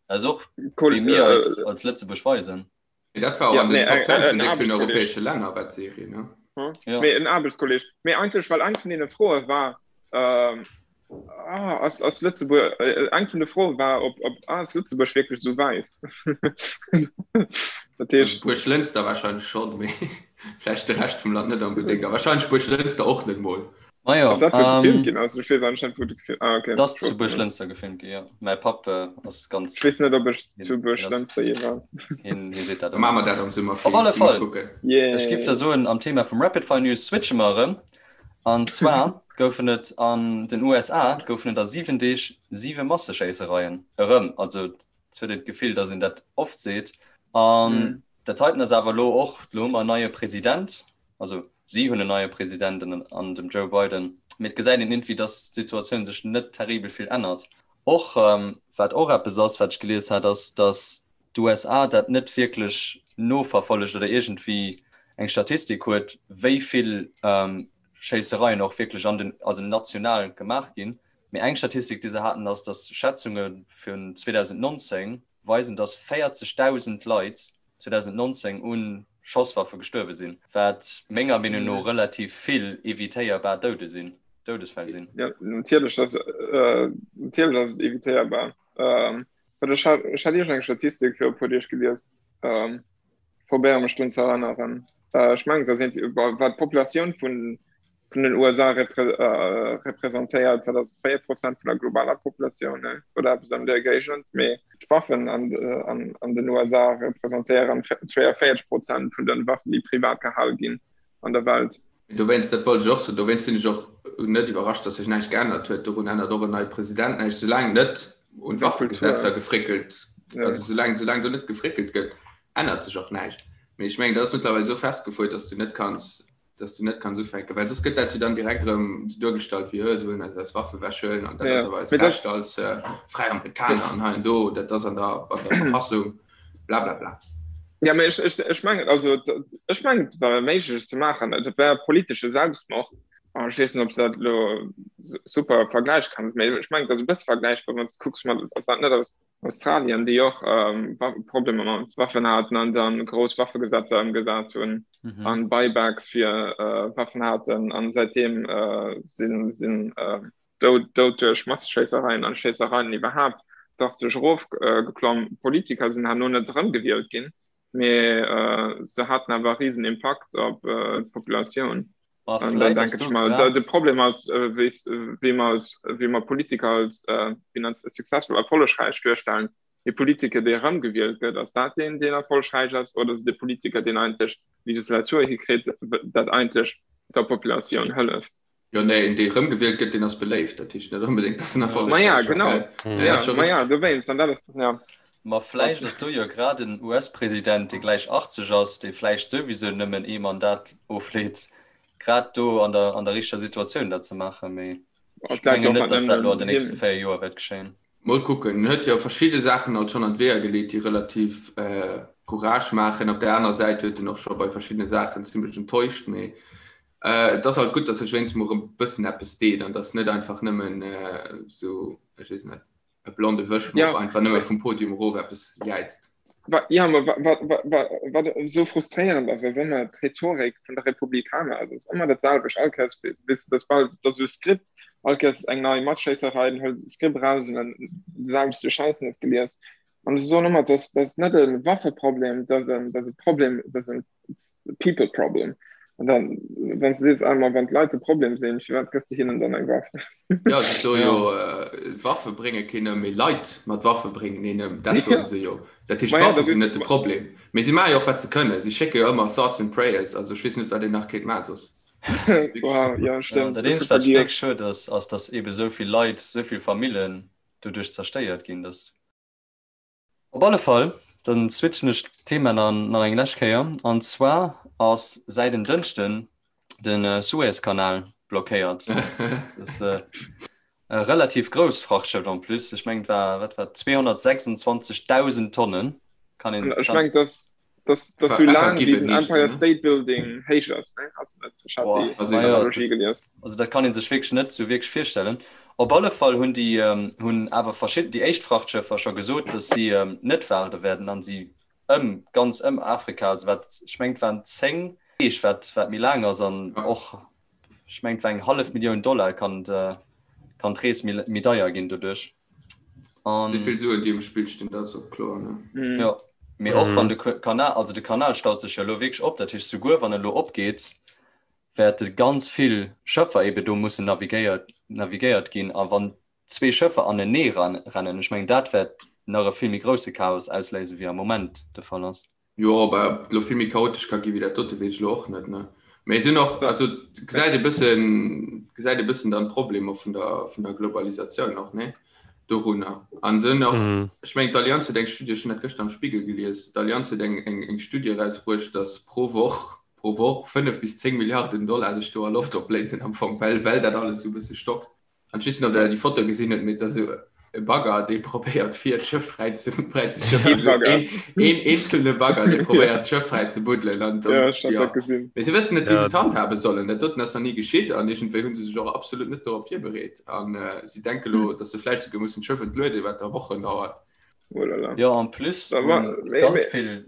Dat ass och Cool, wéi mir äh, eis als Lëtzebuerg weisen. Mee dat war och Ja, an den nee, Top eng, 10 en vun déck villen Aarbechtskolleg. europäesche Länner war d'Serie, ne? Hm? Ja. Mee en Aarbechtskolleg. Mee eigentlech, well eng vun deene Froe war, ähm, Ah, ass, ass Lëtzebuerg, äh, eng vun de Froe war, ob, ob ah, ass Lëtzebuerg wierklech esou wäiss? Dat heescht. Buerglënster wahrscheinlech schonn, mee vläicht de Rescht vum Land net onbedéngt. A wahrscheinlech Buerglënster och net mol. Ma jo, Ass dat wou gefilmt ähm, ginn ass? Ech weess anscheinend wou de gefilmt, ah okay, 't ass ech zu wosst net. Buerglënster gefilmt ginn, jo. Mäi Papp äh, ass ganz, Ech weess net ob ech hien, zu hien ass, Buerglënster je war. hien, hie seet dat Da maache ëmmer. mer dat am Summer, Op alle Felix, gi mer Fall, kucken. ech giff da Yeah. soen, am Thema vum Rapid Fire News switche mer erëm. An zwar goufen et an den USA goufen et a 7 Deeg 7 Masseschéissereien. Erëm, also et huet een d'Gefill, datt een dat oft seet. An dat heiten ass awer elo och, elo hu mer en neie President, also si hunn en neie President an dem Joe Biden, mee et gesäit een iergendwéi, datt d'Situatioun sech net terribel vill ännert. Och wat och eppes ass, wat ech gelies hat, ass, datt d'USA dat net wierklech noverfollegt oder iergendwéi eng Statistik huet, wéi vill Schéissereien och wierklech an den, also national gemaach ginn. Mee eng Statistik, déi se haten, ass, datt Schätzunge vun 2019. weisen, dass 40.000 Leit 2019 un Schosswaffe gestuerwe sinn, wat menger Meenung no relativ vill evitéierbar Doude sinn, Doudesfäll sinn. Jo, natierlech ass, natierlech ass et evitéierbar. Wat ech hat, ech hat iergend eng Statistik viru e puer Deeg gelies, probéiere mech drun ze erënneren. Ech mengen, et ass iergendwéi, wat d'Populatioun vun vun den USA representéiert, wat ass 4 Prozent vun der globaler Populatioun oder eppes an där Géigend, mee d'Waffen an, an, an den USA representéieren 42 Prozent vun den Waffen, déi privat gehal ginn an der Welt. Dowéinst, dat wollt ech och soen, dowéinst sinn ech och net iwwerrascht, datt sech näischt geännert huet. Dorun ännert och en neie President näischt, soulaang net un Waffegesetzer gefréckelt, also soulaang, soulaang do net gefréckelt gëtt, ännert sech och näischt. Mee ech mengen, dat ass mëttlerweil esou festgefuer, datt s du net kanns dass du net kanns ufänken, well soss gëtt dat jo dann direkt erëm sou duergestallt wéi, hö, se wëllen eis eis Waffe wechhuelen an dat ass awer eist Recht als fräi Amerikaner an hei an do, dat ass an der, an der Verfassung, bla bla bla. Ja, mee ech, ech, ech mengen, also ech mengen, et war méiglech ze maachen, et war politesche Selbstmord. An ech weess net, ob s dat elo super vergläiche kanns, mee ech mengen, et ass e bësse vergläichbar, wann s de kucks mat, ob dat net aus Australien, déi och Problemer mat Waffen haten an dann grouss Waffegesetzer ëmgesat hunn mhm. an Buybacks fir äh, Waffen haten an seitdem äh, sinn sinn äh, dout, dout duerch Masseschéissereien an Schéissereien iwwerhaapt drastesch erofgeklomm. Äh, Politiker sinn herno net erëmgewielt ginn, mee äh, se haten awer riesen Impakt op äh, d'Populatioun. Ma An dann vläit ass denke do ich mal, da, grad. de Problem ass, äh, wéi wéi mer als, wéi mer Politiker als äh, finanz successful erfollegräich duerstellen. Dee Politiker, dee erëmgewielt gëtt, ass dat deen, deen erfollegräich ass, oder ass et de Politiker, deen eigentlech Legislatur hikritt, dat eigentlech der Populatioun hëlleft? Jo, nee, een, dee erëmgewielt gëtt, deen ass beléift. Dat heescht net onbedéngt, dass en Ma ja, erfollegräich war, genau. gell? Nee, Ja, ass scho ma ja, richteg. dowéinst. An dat ass, ja. Ma vläicht ass do jo grad en US-President, dee gläich 80 ass, dee vläicht souwisou nëmmen ee Mandat ofleet, grad do an der, an der richteger Situatioun dat ze maachen. Mee ech mengen net, datt dat elo an den nächste 4 Joer wäert geschéien. Mol kucken. En huet jo verschidde Saachen alt schonn an d'Weeër geleet, déi relativ Courage maachen. Op där aner Säit huet en och scho bei verschiddene Saachen zimlech enttäuscht. Mee et ass alt gutt, datt sech wéinst mol erëm e bëssen eppes deet an datt net einfach nëmmen esou, ech weess net, e blonde Wëschmopp ja. einfach nëmme vum Podium erof eppes jäizt. Ja, ma wat, wat, wat, wat esou frustréierend ass, ass ëmmer d'Rhetorik vun de Republikaner. Also, et ass ëmmer dat selwecht. All Kéiers, weess du, dat bal, dat ass esou Skript. All Kéiers eng nei Matschéisserei, dann hëlt de Skript eraus an dann déi selwecht Scheissen ass gelies. An se soen ëmmer, dat ass net e Waffeproblem, dat ass e Problem, dat ass en people problem. An dann, wann du sees einmal, wann d'Leit de Problem sinn, firwat gëss de hinnen dann eng Waff? Ja, se soe jo, äh, Waffe brénge keen ëm, mee Leit mat Waffe bréngen een ëm. Dat soen se jo. Dat heescht, Ma ja, d'Waffe dat sinn ist, net de Problem. Mee si maache jo och, wat se kënnen. Si schécke jo ëmmer Thoughts and Prayers. Also ech weess net, wat een nach kéint maachen soss. wow, ja, Ja, stimmt. dat Ech eenzegt, hu wat vergiess. wierklech schued ass, ass, datt eebe sou vill Leit, sou vill Famillen doduerch zerstéiert ginn, datt. Op alle Fall, dann switchen ech d'Thema dann nach eng lescht Kéier. An zwar ass säit en Dënschden de Suezkanal blockéiert. Dat ass e relativ grousst Frachtschëff en plus. Ech mengen, et war, wat war et, 226.000 Tonnen. Kann een, Ech kann. mengen, dass dass dass sou laang wéi den Empire State Building héich ass, ne? Ass net, ech hat déi Boah, ma jo, Analogie gelies. Also dat kann ee sech wierklech net sou wierklech virstellen. Op alle Fall hunn déi hunn awer verschidden déi éischt Frachtschëffer scho gesot, datt si net waarde wäerten an si ëm ganz ëm Afrika, also wat ech mengen et waren 10 Deeg wat wat méi laang ass an och ech mengen et war eng hallef Millioun Dollar kann kann d'Rees méi méi deier ginn doduerch. An Si vill Suen déi um Spill stinn, dat ass och kloer ne. Mm. Jo, mee och wann de Kanal, also de Kanal staut sech jo elo wierklech op, dat heescht souguer wann e lo opgeet, wäerte ganz vill Schëffer ebe do mussen navigéiert navigéiert ginn a wann zwee Schëffer anenee rennen, ech mengen dat wäert nach e vill méi grousse Chaos ausléisen, wéi am Moment de Fall ass. Jo, ob et elo vill méi chaotesch ka gi wéi dat dote weess ech elo och net, ne. Mee sinn och, also gesäit e bëssen, gesäit e bëssen dann d'Problemer vun der, vun der Globalisatioun och, ne, dorunner. An sinn och, ech mengen d'Allianz huet eng Studie, ech hunn dat gëschter am Spiegel gelies, d'Allianz huet eng, eng, eng Studie erausbruecht, datt pro Woch, pro Woch 5 bis 10 Milliarden Dollar sech do a Loft opléisen am Fong, well, well dat alles esou e bësse stockt. An ech weess net, ob der déi Foto gesinn hutt, mee et ass esou e Bagger, dee probéiert fir d'Schëff fräi ze fräi ze schëffen. Ee Bagger. Een, een eenzelne Bagger, dee probéiert d'Schëff fräi ze buddelen. An dann, Ja, ech hat ja. dat gesinn. Mee se wëssen net, wéi se Ja. et handhabe sollen. Dat doten ass nach ni geschitt an iergendwéi hu se sech och absolut net dorop virbereet. An si denke lo, datt se vläicht souguer mussen d'Schëff entlueden, wat da Wochen dauert. Oh là là. Jo, en plus ganz vill.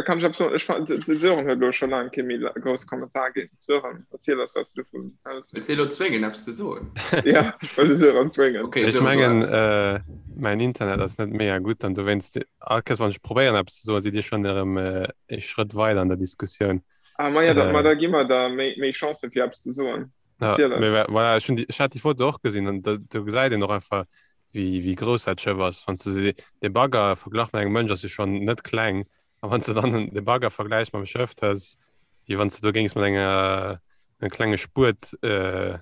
Kann ech eppes soen? Ech fannen, de Sören huet elo scho laang kee méi grousse Kommentar ginn. Sören, erziel eis, wat s du dovun häls. Wëlls de elo zwéngen, eppes ze soen? Ja, ech wëll de Sören zwéngen. Okay, Ech mengen, mäin Internet ass net mega gutt an dowéinst, all Kéiers wann ech probéieren eppes ze soen, sidd Dir schonn erëm ee Schrëtt weider an der Diskussioun. Ah, ma ja, da, ma da gi mer der méi, méi Chancen, fir eppes ze soen. Ja, mee voilà, ech hunn déi, ech hat déi Foto och gesinn an do, do gesäit een och einfach, wéi, wéi grouss dat Schëff ass. Wann s de de Bagger verglach mat engem Mënsch ass e schonn net kleng. A wann s de dann de Bagger vergläichs mam Schëff, dat ass wéi wann s de do géings mat enger engem klenge Spuet äh,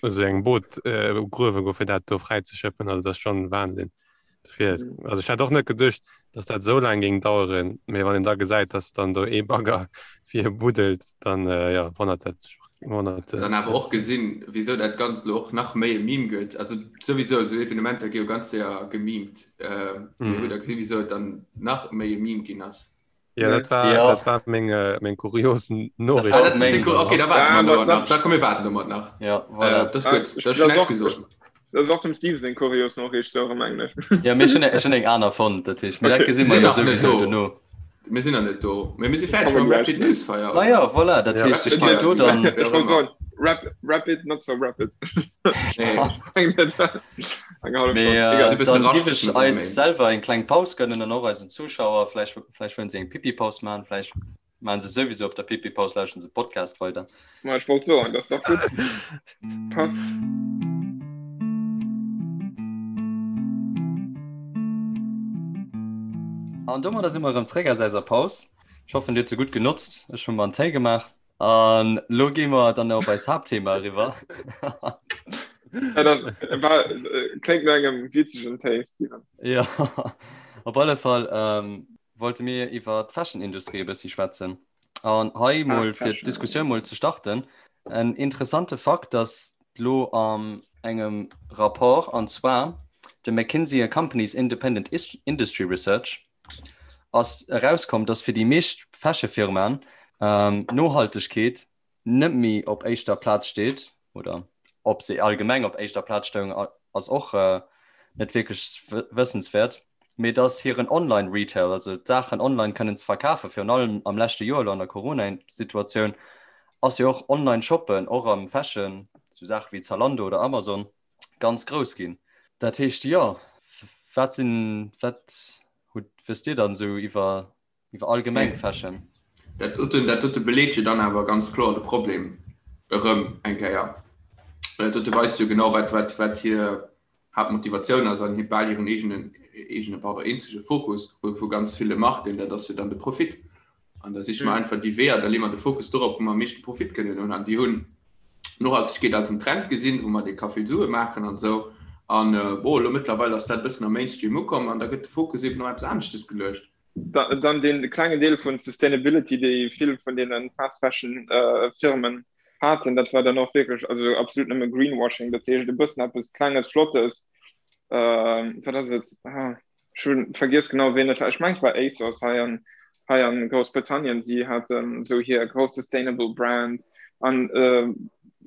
also engem Boot äh, gruewe goen, fir dat do fräizeschëppen. Also dat ass schonn Wahnsinn. Dofir, also ech hätt och net geduecht, dass dat esou laang géing daueren, mee wann een da gesäit, dass dann do ee Bagger fir buddelt, dann äh, ja, wonnert dat sech wonnert. Äh, dann awer och gesinn, wieso dat Ganzt lo och nach méi e Meme gëtt. Also souwisou, esou Evenementer gi jo ganz séier gemimt. Äh, mm. Hutt der gesinn, wieso et dann nach méi e Meme ginn ass? Ja, dat war, ja. dat war meng, äh, meng kurios Noriicht. Ah, dat meng, okay, da warten wir ja, nach. Da komm, wir warten domat nach. Ja, voilà. Äh, das ist gut. Das ist schlecht gesagt. Das ist och dem Steve seng kurios Noriicht, sou erëm englech. Ja, mir hunn ech hunn eng aner fonnt, dat heescht, mir dat Okay. gesi mer Sinn jo nach net souwisou do. dono. Mir sinn nach net do. Mee mir si fäerdeg mam Rapid Newsfire, Ma oder? ja, voilà, dat Ja. heescht, ech Rapid géif Fire, do dann. wéi Ech och wollt ëmmer. soen, rap, rapid, not so rapid. Nee. Eng hallef Mee Stonn. Si Egal. äh, bësse dann giff raschteg ech no 3 eis Méint. selwer eng kleng Paus gönnen an och eisen Zuschauer. Vläicht, vläicht wëllen se eng Pipi-Paus maachen, vläicht maachen se souwisou op der Pipi-Paus, lauschteren se Podcast weider. Ma ech wollt soen, dat ass dach gutt. Passt. An domadder si mer erëm zréck aus eiser Paus. Ech hoffen, Dir hutt se gutt genotzt. Ech hu mer en Téi gemaach. An lo gi mer dann op eist Haaptthema eriwwer. Ja, dat war, äh, kléngt no engem witzegen Téi, Steven. Ja, op alle Fall ähm, wollte mir iwwer d'Fashion-Industrie e bëssi schwätzen. An hei Ah, mol fir Fashion. d'Diskussioun mol ze starten, en interessante Fakt, dass lo an engem Rapport, an zwar de McKinsey and Company's Independent Industry Research, ass erauskomm, dass fir déi meescht Fashion-Firmaen Nohaltegkeet net méi op éischter Plaz steet, oder ob se allgemeng op éischter Plaz stoung, ass och net wierklech wëssenswäert, mee dass hiren Online-Retail, also d'Saachen online kënnen ze verkafen, virun allem am leschte Joer elo an der Corona-Situatioun, ass jo och Online-Shoppen, och am Fashion, sou Saache wéi Zalando oder Amazon, ganz grouss ginn. Dat heescht, jo, wat sinn, wat hutt, wësst Dir dann esou iwwer Iwwer allgemeng Fashion. Dat doten, dat dote beleet jo dann awer ganz kloer de Problem erëm eng Kéier. Well dat dote weist jo genau, wat, wat, wat hir Haaptmotivatioun ass an hir bal hiren eegenen, eegene, pardon, eenzege Fokus vu, vu ganz ville Marken, dat ass jo dann de Profit. An da siche mer einfach déi Weeër, da leeë mer de Fokus dorop, wou mer am meeschte Profit kënnen hunn. An déi hunn Nohaltegkeet als en Trend gesinn, wou mer dee ka vill Sue maachen an esou. An bon, elo mëttlerweil ass dat e bëssen am Mainstream ukomm an da gëtt de Fokus eben op eppes aneschtes geluecht. Dann dee klengen Deel vun Sustainability, déi vill vun deene Fast Fashion Firmen haten, dat war dann och wierklech also absolut nëmme Greenwashing, dat heescht e bëssen eppes Klenges, Flottes, wat ass et, ech hu vergiess genau ween et war, ech mengen et war ASOS hei an hei an Groussbritannien, si haten esou hir grouss sustainable Brand an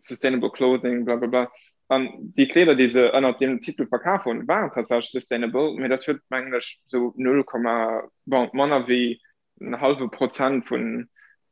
sustainable clothing blablabla. An déi Kleeder, déi se ënnert deem Titel verkaf hunn, waren tatsächlech sustainable, mee dat huet, mengen ech, esou null Komma, bon, manner wéi en hallwe Prozent vun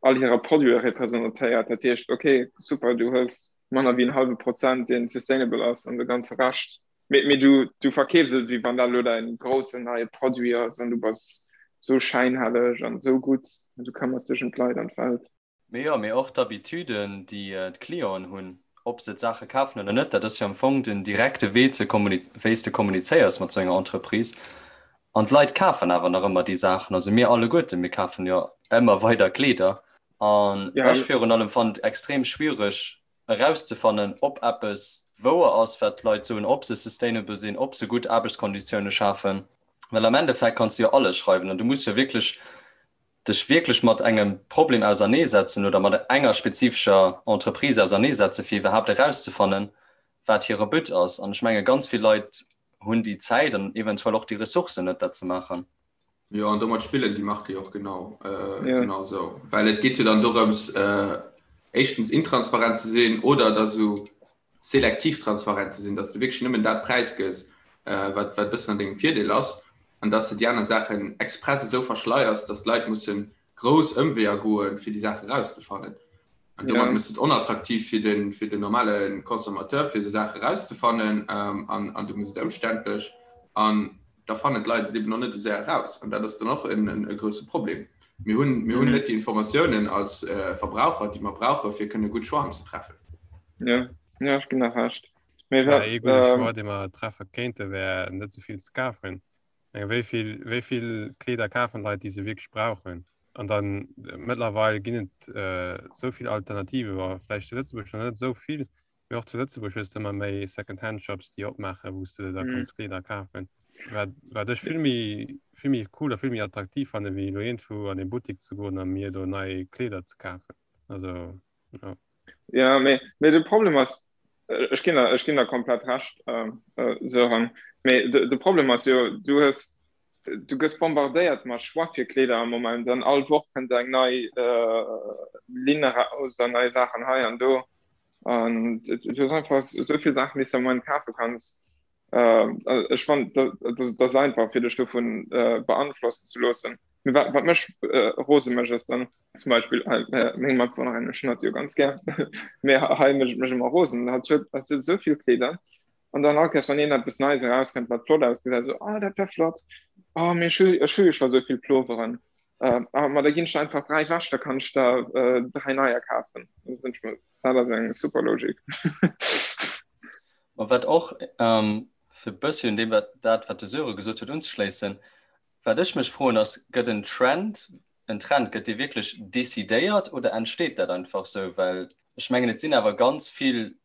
all hirer Produite representéiert. Dat heescht, okay, super, du hues manner wéi en hallwe Prozent, dee sustainable ass, an de ganze Rescht, mee, mee du, du verkeefs et, wéi wann dat elo däin groussen neie Produit ass an du bass esou schäinhelleg an esou gutt an du këmmers dech ëm d'Leit an d'Welt. Mee jo, mee och d'Habitüden, déi d'Clienten hunn, ob se d'Saache kafen oder net, dat ass jo am Fong den direkte Wee ze wéi s de kommunizéiers mat esou enger Entreprise. An d'Leit kafen awer nach ëmmer déi Saachen. Also mir alleguerten, mir kafen jo ëmmer weider Kleeder. An ech virun allem fannen et extrem schwiereg erauszefannen, ob eppes wouer ass, wat d'Leit soen, ob se sustainable sinn, ob se gutt Aarbechtskonditioune schafen. Well am Endeffekt kanns de jo alles schreiwen an du muss jo wierklech dech wierklech mat engem Problem auserneesetzen oder mat enger spezifescher Entreprise auserneesetzen, fir iwwerhaapt erauszefannen, wat hire But ass. An ech menge ganz vill Leit hunn déi Zäit an eventuell och déi Ressourcen net, dat ze maachen. Jo, an domat spillen déi Marke jo och genau, genau esou. Well et geet jo dann dorëms, éischtens intransparent ze sinn oder da sou selektiv transparent ze sinn, dass de wierklech nëmmen dat präisgëss, wat wat e bëssen an dengem Virdeel ass. An dass de déi aner Saachen express esou verschleiers, dass d'Leit musse grouss Ëmweeër goen, fir déi Saache erauszefannen. An domat méchs de et onattraktiv fir de, fir den normale Consommateur, fir esou Saache erauszefannen. An, an du méchs et ëmständlech. An da fannen d'Leit et eben och net esou séier eraus. An dat ass dann och en, e grousse Problem. Mir hunn, mir hunn net déi Informatiounen als Verbraucher, déi mer brauchen, fir kënne gutt Choixen ze treffen. Jo, jo, ech ginn der Recht. Mee wat, Ee gudde Choix, dee mer treffe kéinte, wär net esou vill ze kafen. Eng wéi vill, wéi vill Kleeder kafen Leit, déi se wierklech brauchen? An dann mëttlerweil ginn et esou vill Alternative, wa vläicht zu Lëtzebuerg nach net esou vill, mee och zu Lëtzebuerg hues de ëmmer méi Second-Hand-Shops, déi opmaachen, wou s de da kanns Kleeder kafen. Wat, wat ech vill méi, vill méi cool a vill méi attraktiv fanne wéi elo iergendwou an ee Buttik ze goen a mir do nei Kleeder ze kafen. Also, ja. Ja, mee, mee de Problem ass, ech ginn der, ech ginn der komplett Recht, Sören, mee de, de Problem ass jo, du hues, du gëss bombardéiert mat Choix fir Kleeder am Moment an all Woch kënnt eng nei Linn eraus an nei Saachen hei an do an du hues einfach esou vill Saachen, déi s de am Moment kafe kanns. Ech fannen, dat ass einfach, fir dech dovun beanflossen ze loossen. Mee wat, wat mech rose mécht, ass dann, zum Beispill meng Matbewunnerin, ech hunn hatt jo ganz gär, mee hei mécht et mech ëmmer rosen, hatt huet, hatt huet esou vill Kleeder an dann all Kéiers, wann een eppes Neies erauskënnt, wat flott ausgesäit, esou, oh dat wär flott, oh mee ech hu, ech hu jo scho esou vill Ploveren, ah ma da ginn ech der einfach 3 ewech, da kann ech der 3 neier kafen. Dat ass eng super Logik. Ma wat och, fir e bëssi un deem wat dat wat de Sören gesot huet unzeschléissen, wat ech mech froen ass, gëtt en Trend, en Trend, gëtt dee wierklech decidéiert oder entsteet dat einfach sou? Well ech mengen et sinn awer ganz vill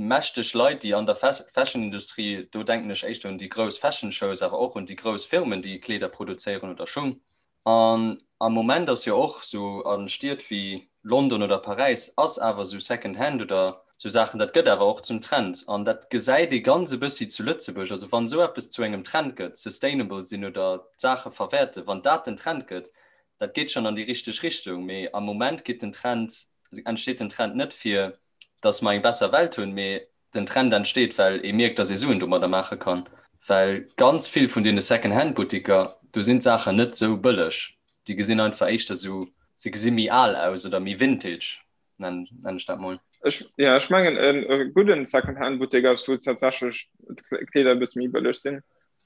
mächteg Leit déi an der Fashion-Industrie, do denken ech éischter un déi grouss Fashion-Shows, awer och un déi grouss Firmen déi Kleeder produzéieren oder Schung, An am Moment ass jo och sou a Stied wéi London oder Paräis ass awer sou Second Hand oder sou Saachen, dat gëtt awer och zum Trend. An dat gesäit ee ganz e bëssi zu Lëtzebuerg. Also wann esou eppes zu engem Trend gëtt, sustainable sinn oder d'Saache verwäerten, wann dat den Trend gëtt, dat geet schonn an déi richteg Richtung. Mee am Moment geet den Trend, entsteet den Trend net fir dass mer eng besser Welt hunn, mee den Trend entsteet, well ee mierkt, dass ee Suen domadder maache kann. Well ganz vill vun deene Second-Hand-Buttiker, do sinn d'Saachen net esou bëlleg. Déi gesinn einfach éischter esou, se gesi méi al aus oder méi vintage, nennen ech dat mol. Ech, jo, ech mengen e gudden Second-Hand-Buttek ass, wou tatsächlech d'Kleeder e bësse méi bëlleg sinn.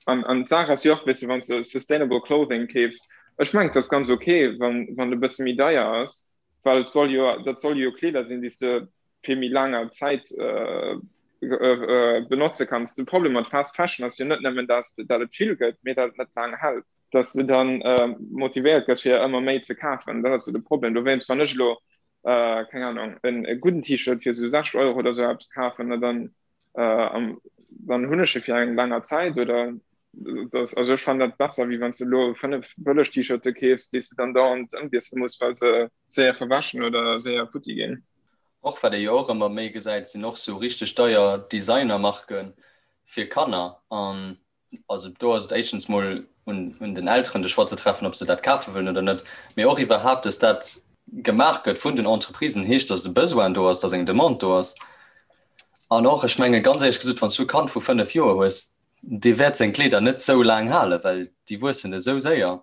An, an d'Saach ass jo och, weess de, wann s de sustainable clothing keefs, ech mengen, et ass ganz ok, wann, wann e bësse méi deier ass, well et soll jo, dat soll jo Kleeder sinn, déi s de fir méi laanger Zäit benotze kanns. De Problem mat Fast Fashion ass jo net nëmmen, dass dat et vill gëtt, mee dat et net laang hält, dass du dann motivéiert gëss fir ëmmer méi ze kafen. Dat ass jo de Problem. Dowéinst, wann ech elo, keng Ahnung, e gudden T-Shirt fir esou 60 Euro oder esou eppes kafen, na dann dann hunn ech e fir eng länger Zäit oder das, also ech fannen dat besser wéi wann s de elo 5 bëlleg T-Shirte keefs, déi s de dann dauernd ëmwiessele muss, well se séier verwäschen oder séier futti ginn. Och wat ee jo och ëmmer méi gesäit, sinn och sou richteg deier Designermarke fir Kanner an Also do ass et éischtens mol un, un den Elteren de Choix ze treffen, ob se dat kafe wëllen oder net. Mee och iwwerhaapt, dass dat gemaach gëtt vun den Entreprisen, heescht, dass e Besoin do ass, dass eng Demande do ass. An och, ech menge ganz éierlech gesot, wann s du e Kand vu 5 Joer hues, dee wäert seng Kleeder net sou laang halen, well déi wuessen esou séier.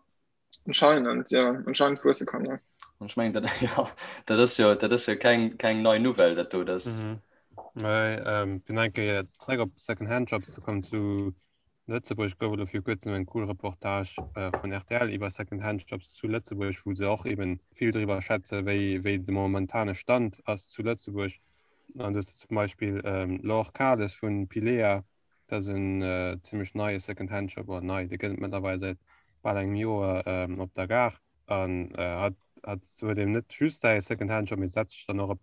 Anscheinend, ja, anscheinend wuesse Kanner. An ech mengen, dat, ja, dat ass jo, dat ass jo keng, keng nei Nouvelle, dat do, dat. Mhm. Mä ähm, fir nach eng Kéier zréck op Second-Hand-Shops ze kommen, zu Lëtzebuerg gouf et elo viru kuerzem eng cool Reportage äh, vun rtl iwwer Second-Hand-Shops zu Lëtzebuerg, wou se och eben vill driwwer schwätze wéi, wéi de momentane Stand ass zu Lëtzebuerg. An do ass zum Beispill ähm, Laure Kahles vun Pilea, Dat ass en zimmlech neie Second-Hand-Shop, oder nei, dee gëtt et mëttlerweil säit bal engem Joer op der Gare. An hat hat huet eben net just säi Second-Hand-Shop, mee setzt sech dann och op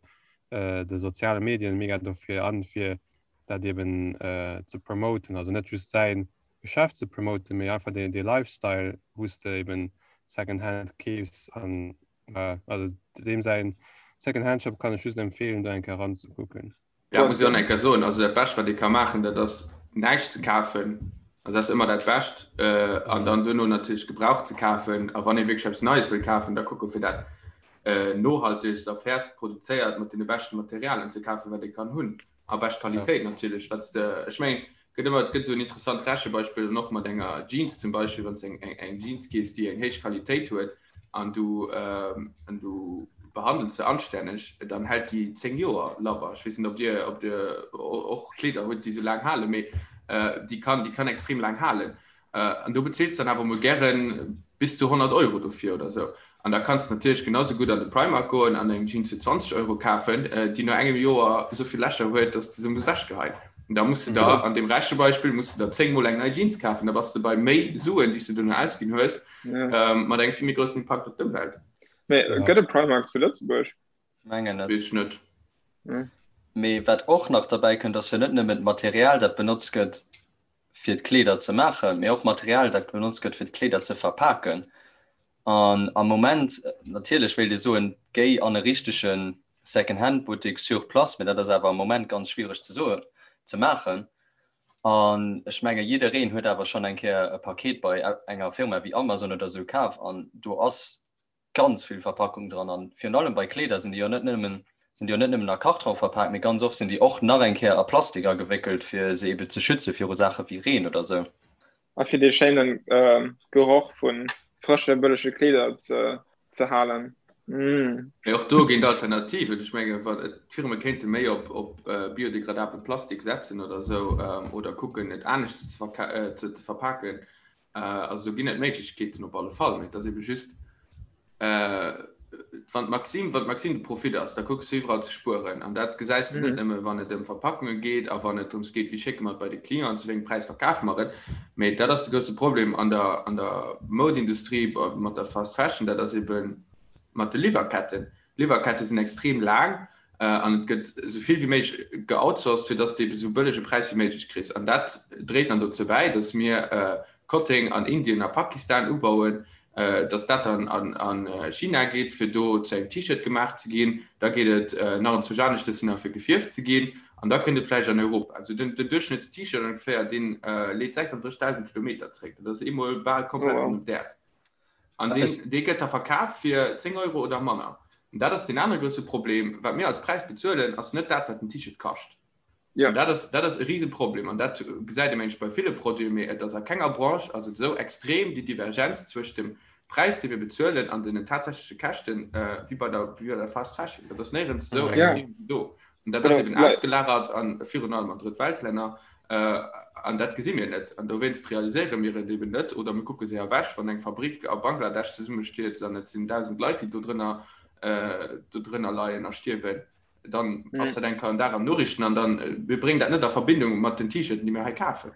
de soziale Medien mega dofir an, fir dat eben ze promoten. Also net just säi Geschäft ze promoten, mee einfach dee dee Lifestyle, wou s de eben Second-Hand keefs. An also deem säin Second-Hand-Shop kann ech just empfeelen, do eng Kéier eranzekucken. Ja, muss ich och enker soen, also dat Bescht wat ee ka maachen, dat ass näischt ze kafen, also dat ass ëmmer dat Bescht, an dann duerno natierlech gebraucht ze kafen. A wann ee wierklech eppes Neies wëll kafen, da kucke fir dat nohaltegst a fairst produzéiert mat deene beschte Materialien ze kafen, wat ee kann hunn, a bescht Qualitéit natierlech, wat s de, ech mengen. Gëtt ëmmer, et gëtt esou en interessant Rechebeispill dann och mat enger Jeans zum Beispill, wann s de eng, eng, eng Jeans keefs, déi eng héich Qualitéit huet an du, an du behandels se anstänneg, dann hält déi 10 Joer labber. Ech weess net, ob Dir, ob Dir och Kleeder hutt, déi esou laang halen, mee déi kann, déi kann extrem laang halen. An do bezils dann awer mol gären bis zu 100 Euro dofir oder sou. An da kanns de natierlech genau sou gutt an de Primark goen an eng Jeans fir 20 Euro kafen, déi no engem Joer esou vill Lächer huet, dass de se muss ewechgeheien. An da muss de der, an deem Rechebeispill, muss de der 10 mol eng nei Jeans kafen. Da bass de bei méi Suen, déi s de dono ausginn hues, mat engem vill méi groussen Impakt op d'Ëmwelt. Mee gëtt et Primark zu Lëtzebuerg? Mengen net. Weess ech net. Mee wat och nach derbäi kënnt, ass jo net nëmmen d'Material, dat benotzt gëtt, fir d'Kleeder ze maachen, mee och Material, dat benotzt gëtt, fir d'Kleeder ze verpaken. An am Moment, natierlech wéilt ee soen, géi an e richtege Second-Hand-Buttek sur place, mee dat ass awer am Moment ganz schwiereg ze soen, ze maachen. An ech menge jiddereen huet awer schonn eng Kéier e Paket bei enger Firma wéi Amazon oder esou kaf an do ass ganz vill Verpackung dran an virun allem bei Kleeder sinn déi jo net nëmmen sinn déi jo net nëmmen a Karton verpaakt, mee ganz oft sinn déi och nach eng Kéier a Plastik agewéckelt, fir se ebe ze schütze viru Saache wéi Reen oder sou. A fir dee schéine Geroch vu frësche bëllege Kleeder ze halen. Mmh. Mee och do ginn et Alternativen. Ech menge d'Firme kéinte méi op op biodegradabele Plastik setzen oder sou oder kucken et anescht ze ze verpaken. Also do ginn et Méiglechkeeten op alle Fall, mee et ass ebe just, wann d'Maxime, wann d'Maxime de Profit ass, da kucks du iwwerall ze spueren. An dat gesäis de net nëmme wann et ëm Verpackunge geet a wann et drëms geet, wéi schécke mer et bei de Client an zu wéi engem Präis verkafe mer et. Mee dat ass de grousse Problem an der, an der Modeindustrie mat der Fast Fashion, dat ass ebe mat de Liwwerketten. D'Liwwerkette sinn extrem laang an et gëtt esou vill wéi méiglech geoutsourced, fir dass de ebe esou bëllege Präis wéi méiglech kriss. An dat dréit dann dozou bäi, dass mir Kotteng an Indien a Pakistan ubauen, dass dat dann a China geet, fir do zu engem T-Shirt gemaach ze ginn. Da geet et nach enzwousch aneschtes hin, fir gefierft ze ginn. An da kënnt et vläicht an Europa. Also den Duerchschnëtts-T-Shirt ongeféier, dee leet 36.000 Kilometer zeréck. Dat ass eemol bal komplett ronderëm d'Äerd. An deen, dee gëtt da verkaf fir 10 Euro oder manner. An dat ass deen anere grousse Problem, Wat mir als Präis bezuelen, ass net dat, wat den T-Shirt kascht. Ja. An dat ass, dat ass e Riseproblem. An dat gesäit ee mengen ech bei ville Produiten, mee et ass a kenger Branche ass et esou extrem, déi Divergenz zwëscht dem Präis, dee mir bezuelen, an den tatsächleche Käschten, wéi bei der, wéi bei der Fast Fashion. Dat ass néierens esou extrem wéi do. An dat ass eben ausgelagert an virun allem an Drëttweltlänner. An dat gesi mir net. An dowéinst realiséiere mir et eben net oder mir kucke se ewech, wann eng Fabrik a Bangladesch zesummestierzt an et sinn 1.000 Leit, déi do drënner, do drënner leien a stierwen, dann ass dat eng Kéier en Dag an Noriichten an dann, mir bréngen dat net a Verbindung mat den T-Shirten, déi mir hei kafen.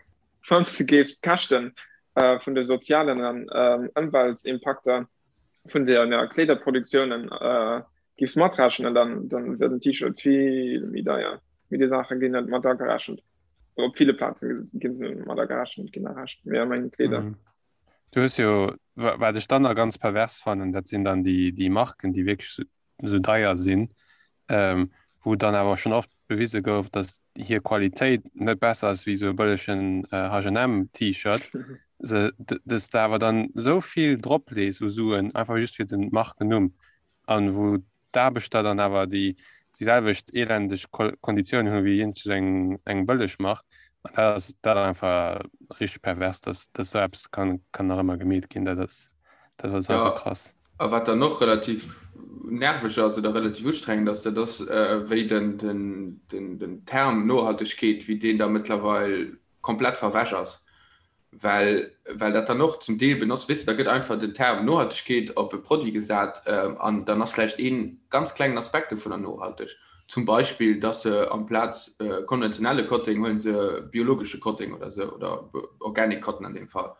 Wann s de géifs d'Käschte vun de sozialen an Ëmweltsimpakter vun der Kleederproduktiounen géifs matrechnen, dann dann wier den T-Shirt vill méi deier. Mee déi Saache ginn net mat agerechent. Op ville Plaze ginn se net mat agerechent, ginn errecht, mee a mengen Kleeder. Mhm. Du hues jo, wat ech dann nach ganz pervers fannen, dat sinn dann déi, déi Marken, déi wierklech esou deier sinn, ähm, wou dann awer schonn oft bewise gouf, datt hir Qualitéit net besser ass wéi esou e bëllegen H&M T-Shirt. Se, dass de awer dann esou vill drop lees u Suen, einfach just fir den Markennumm. An wou d'Aarbechter dann awer déi déi selwecht elendeg Konditiounen hu wéi iergend eng eng bëlleg Mark. An dat ass dat ass einfach richteg pervers, dass dass esou eppes kann kann nach ëmmer gemeet ginn. Dat ass dat ass einfach krass. A wat dann och relativ nerveg ass oder relativ ustrengend ass, dat ass wéi den den den den Term Nohaltegkeet, wéi deen da mëttlerweil komplett verwäsch ass. Well, well dat dann och zum Deel benotzt, weess de, da gëtt einfach den Term Nohaltegkeet op e Produit gesat an dann ass vläicht ee ganz klengen Aspekt dovunner nohalteg. Zum Beispill, dass se amplaz konventionelle Kotteng huele se biologesche Kotteng oder esou oder organic cotton an deem Fall.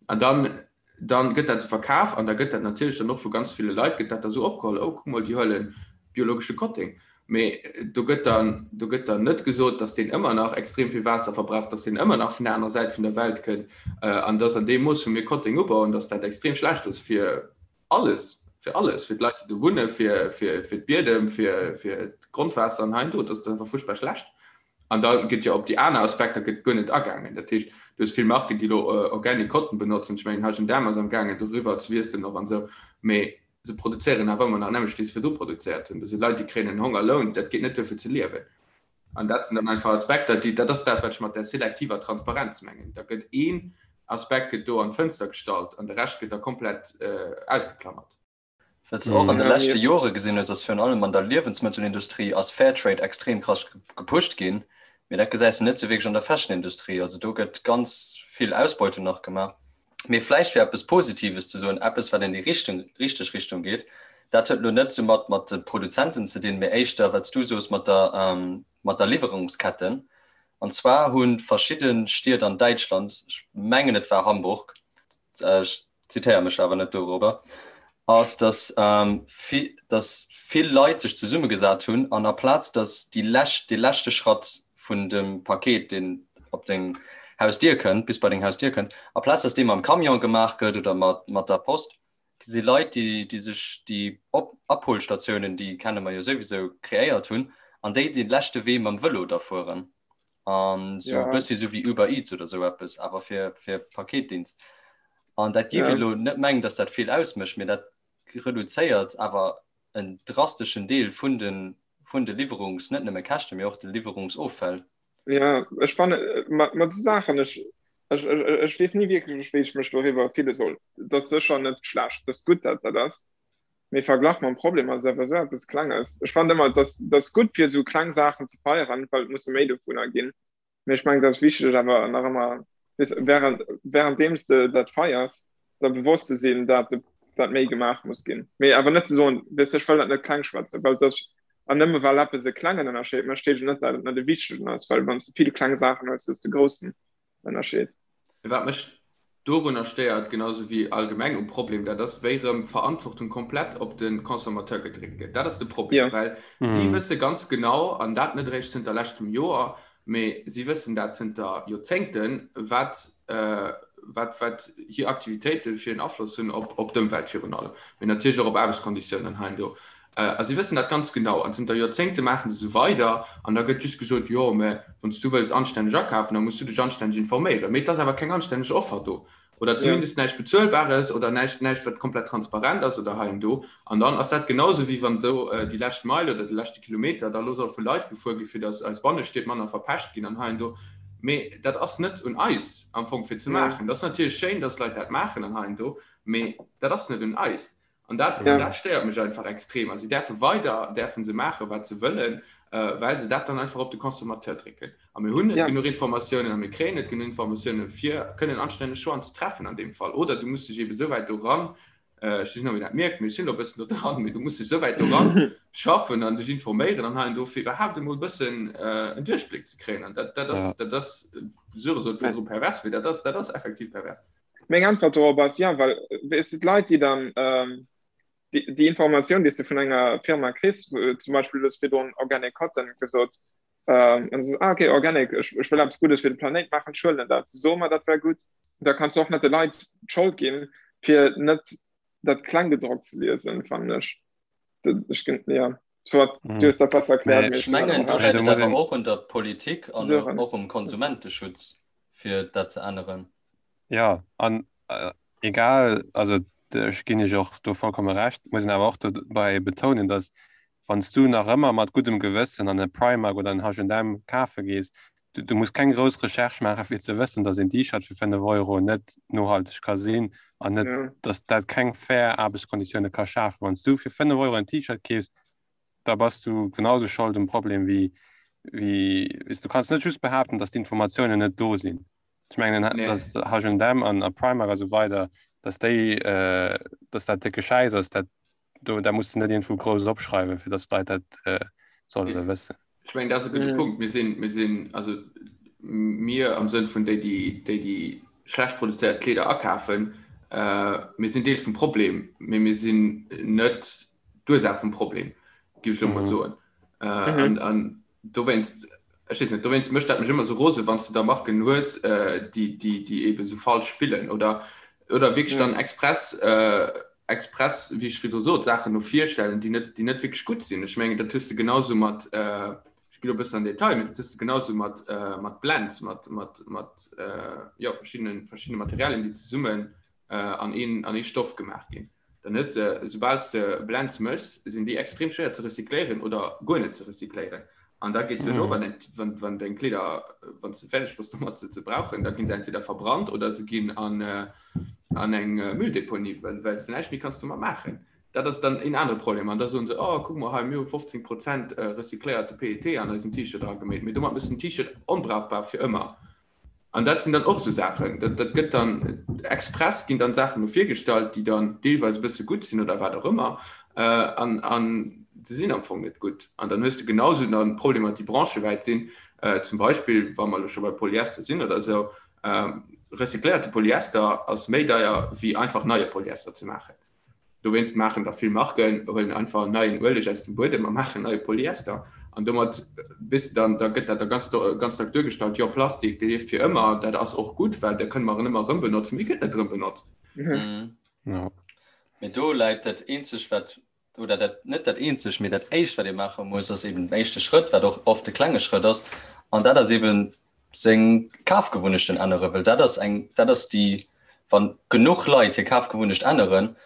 An dann, dann gëtt dat esou verkaf an da gëtt dat natierlech dann och vu ganz ville Leit gëtt dat da esou opgeholl, oh kuck mol, déi huele biologesche Kotteng. Mee do gëtt dann, do gëtt dann net gesot, datt deen ëmmer nach extrem vill Waasser verbraucht, datt deen ëmmer nach vun der anerer Säit vun der Welt kënnt an datt an deem Mooss, wou mir Kotteng ubauen, datt dat extrem schlecht ass fir alles, fir alles, fir d'Leit, déi do wunnen, fir, fir, fir d'Biedem, fir, fir d'Grondwaasser an hei an do. Dat ass einfach fuerchtbar schlecht. An da gëtt jo op déi aner Aspekter gëtt guer net agaangen. Dat heescht, du hues vill Marken, déi elo Organic Cotton benotzen. Ech mengen, H&M ass amgaangen, doriwwer ze wiesselen och an esou. Mee Se produzéieren awer ëmmer nach nämmlecht, wéi se virdru produzéiert hunn. Do si Leit, déi kréien en Hongerloun, dat geet net duer fir ze liewen. An dat sinn dann einfach Aspekter, déi, dat ass dat, wat ech mat der selektiver Transparenz mengen. Da gëtt een Aspekt gëtt do an d'Fënster gestallt an de Rescht gëtt da komplett ausgeklammert. Wat s de och an de leschte Jore gesinn hues, ass virun allem an der Liewensmëttelindustrie ass Fairtrade extrem krass gepusht ginn, mee dat gesäis de net sou wierklech an der Fashionindustrie. Also do gëtt ganz vill Ausbeutung nach gemaach. Mee vläicht fir eppes Positives ze soen, eppes wat an déi Richtung, richteg Richtung geet, dat huet elo net sou mat mat de Produzenten ze dinn, mee éischter wat s du soos mat der mat der Liwwerungsketten. An zwar hu verschidde Stied an Däitschland, ech mengen et war Hamburg, ech zitéiere mech awer net dorobber, ass, dass, ähm, dass vill Leit sech zesummegesat hunn an aplaz dass déi lescht, dee leschte Schratt vun dem Paket, deen op deng Hausdier kënnt, bis bei deng Hausdier kënnt, aplaz dass dee mam Camion gemaach gëtt oder mat, mat der Post, si Leit, déi, déi sech déi Op Abholstatiounen, déi kenne mer jo souwisou, kreéiert hunn an déi dee leschte Wee mam Vëlo da fueren. An sou e bëssi sou wéi Uber Eats oder sou eppes, awer fir, fir Paketdienst. An dat géif een elo net mengen, datt dat vill ausmécht, mee dat reduzéiert awer en drasteschen Deel vun de, vun de Liwwerungs-, net nëmme Käschten, mee och de Liwwerungsoffäll. Ja, ech fanne mat esou Saachen, ech, ech, ech weess ni wierklech, wéi ech mech doriwwer fille soll. Et ass sécher net schlecht, et ass gutt, datt dat ass, mee verglach mam Problem ass et awer esou eppes Klenges. Ech fannen ëmmer, et ass, et ass gutt, fir esou kleng Saachen ze feieren, well et musse méi dovunner ginn. Mee ech mengen, et ass wichteg awer nach ëmmer, weess, während, währenddeems de dat feiers, der bewosst ze sinn, dat de, dat méi gemaach muss ginn. Mee awer net ze soen, weess de, ech wëll dat net kleng schwätzen, well dat, an nëmme well eppes e klengen Ënnerscheed mécht, heescht et net, dat et net e wichtegen ass, well wann s de vill kleng Saachen hues, hues de groussen Ënnerscheed. Wat mech dorunner stéiert, genau sou wéi allgemeng um Problem, dat ass, wéi erëm d'Verantwortung komplett op de Consommateur gedréckt gëtt. Dat ass de Problem, well si wësse ganz genau, an dat net eréischt zënter leschtem Joer, mee si wëssen dat zënter Joerzéngten, wat, wat, wat hir Aktivitéite fir en Afloss hunn op, op d'Ëmwelt virun allem, mee natierlech och op Aarbechtskonditiounen hei an do. A si wëssen dat ganz genau. An zënter Joerzéngte maache se esou weider. An da gëtt just gesot, Jo, mä wann s du wëlls anstänneg akafen, da muss du dech anstänneg informéieren. Mee et ass awer keng anstänneg Offer do. Oder zumindest näischt Bezuelbares oder näischt, näischt, wat komplett transparent ass oder hei an do. An dann ass dat genauso, wéi wann do déi lescht Meil oder de leschte Kilometer da elo soll vu Leit gefuer gi fir datt eis Bannestied manner verpescht ginn an hei an do. Mee dat ass net un eis am Fong fir ze maachen. Dat ass natierlech schéin, datt Leit dat maachen an hei an do, mee dat ass net un eis. An dat, ja. dat stéiert mech einfach extrem. A si däerfe weider däerfen se maachen, wat se wëllen, äh, well se dat dann einfach op de Consommateur drécken. A mir hunn net ja. genuch Informatiounen a mir kréien net genuch Informatiounen, fir kënnen anstänneg Choixen ze treffen an deem Fall. Oder du muss dech eben esou wäit doran, äh, ech weess net, ob een dat mierkt, mee ech sinn elo e bëssen do dran, mee du muss dech esou wäit doran schaffen an dech informéieren an hei an do, fir iwwerhaapt emol e bëssen äh, en Duerchbléck ze kréien. An dat, dat ass, ja. dat ass, Söre sot virdru pervers, mee dat ass, dat ass effektiv pervers. Meng Äntwert dorop ass ja, well weess de d'Leit, déi dann déi, déi Informatioun, déi s de vun enger Firma kriss, zum Beispill du hues virdrun Organic Cotton gesot, an du sees, ah okay, Organic, ech, ech wëll eppes Guddes fir de Planéit maachen, ech huelen dat, se soe mer, dat wär gutt, da kanns du och net de Leit d'Schold ginn, fir net dat Klenggedrockt ze liesen, fannen ech. Ech, ja. Soit, du hues dat besser erkläert. Ech mengen, do läit et awer och un der Politik an och um Konsumenteschutz, fir dat ze änneren. Ja, an egal, also ech ginn Iech och do vollkomme Recht, muss een awer och dobäi betounen, datt wann s du nach ëmmer mat guddem Gewëssen an e Primark oder en H&M kafe gees, du, du muss keng grouss Recherche maache fir ze wëssen, datt een T-Shirt fir 5 Euro net nohalteg ka sinn an net, datt dat keng fair Aarbechtskonditioune ka schafen. Wann s du fir 5 Euro en T-Shirt keefs, da bass du genau sou Schold um Problem wéi, wéi, weess, du kanns net just behaapten, datt d'Informatiounen net do sinn. Ech mengen, nee. dass H&M an a Primark a sou weider, dass déi, äh, dass dat décke Schäiss ass, dat, do, da muss du net irgendwou grouss opschreiwen, fir dass d'Leit dat äh, solle nee. wëssen. Ech mengen, dat ass e gudde mm. Punkt. Mir sinn, mir sinn, also mir am Sënn vun déi, déi, déi, déi schlecht produzéiert Kleeder akafen, äh, mir sinn Deel vum Problem, mee mir sinn net d'Ursaach vum Problem, géif ech lo mol mm. soen. Äh, mhm. an, an dowéinst, ech weess net, dowéinst mécht dat mech ëmmer sou rose, wann s de da Marken hues, déi, déi, déi eebe sou falsch spillen oder, oder wierklech dann express, express, wéi ech virdru sot, Saachen no vir stellen, déi net, déi net wierklech gutt sinn. Ech mengen, dat hues de genausou mat, ech ginn elo e bëssen an Detail, mee dat hues de genausou mat, mat Blends, mat, mat, mat, jo, verschiddenen, verschiddene Materialien, déi zesummen an een, an ee Stoff gemaach ginn. Dann hues de, soubal s de Blends méchs, sinn déi extrem schwéier ze recycléieren oder guer net ze recycléieren. An da geet duerno, wann eng, wann, wann deng Kleeder, wann s de fäerdeg bass domat se ze brauchen, da ginn se entweder verbrannt oder se ginn an, an eng Mülldeponie, well, well s de näischt méi kanns domat maachen. Dat ass dann een anere Problem. An da soen se, oh, kuck mol hei, mir hu 15 Prozent recycléierte PET an eisen T-Shirt erageméit. Mee domat méchs de den T-Shirt onbrauchbar fir ëmmer. An dat sinn dann och esou Saachen, dat, dat gëtt dann express ginn dann Saachen no virgestallt, déi dann deelweis e bësse gutt sinn oder wat och ëmmer, an, an se sinn am Fong net gutt. An dann hues de genausou dann Problemer, déi branchewäit sinn, zum Beispill, wa mer elo scho bei Polyester sinn oder esou, recycléierte Polyester ass méi deier wéi einfach neie Polyester ze maachen. Dowéinst maachen der vill Marken, huelen einfach neien Ueleg aus dem Buedem a maachen neie Polyester. An domat bis dann, da gëtt dat da ganz, ganz dack duergestallt, jo Plastik, dee lieft fir ëmmer, dat ass och gutt, well da kënne mer en ëmmer erëm benotzen, mee gëtt net erëm benotzt. Mhm. Mee do läit dat eenzeg wat, oder dat net dat eenzeg, mee dat éischt wat ee maache muss, ass eben den éischte Schrëtt, wat och oft de klenge Schrëtt ass, an dat ass eben seng Kafgewunnechten änneren, well dat ass eng, dat ass déi, wann genuch Leit hir Kafgewunnecht änneren,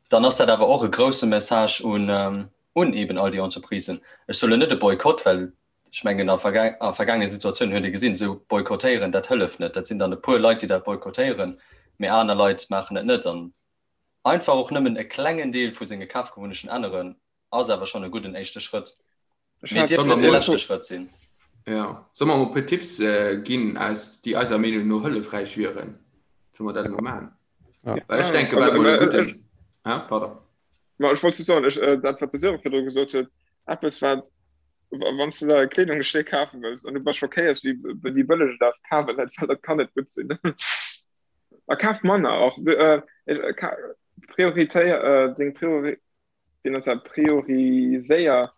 dann ass dat awer och e grousse Message un, un eben all déi Entreprisen. Ech soe lo net e Boykott, well ech mengen a a vergaangene Situatiounen huet ee gesinn, esou boykottéieren, dat hëlleft net. Dat sinn dann e puer Leit, déi dat boykottéieren, mee aner Leit maachen et net. An einfach och nëmmen e klengen Deel vu senge Kafgewunnechten änneren, ass awer schonn e gudden éischte Schrëtt. Mee dierf net de leschte Schrëtt sinn. Ja. Solle mer emol e puer Tipps ginn, aus déi eiser Meenung no hëllefräich wieren? Solle mer dat emol maachen? Ja. Well ech denke, wat emol e gudden. Hä? Pardon. Ma ech wollt just soen, ech, dat wat de Sören virdru gesot huet, eppes wat, wann s de der e Kleedungsstéck kafe wëlls an du bass schockéiert, wéi, wéi bëlleg et ass, kaf et net, well dat kann net gutt sinn. A kaf manner och. Prioritéier deng Priori. Wéi nenns dat, prioriséier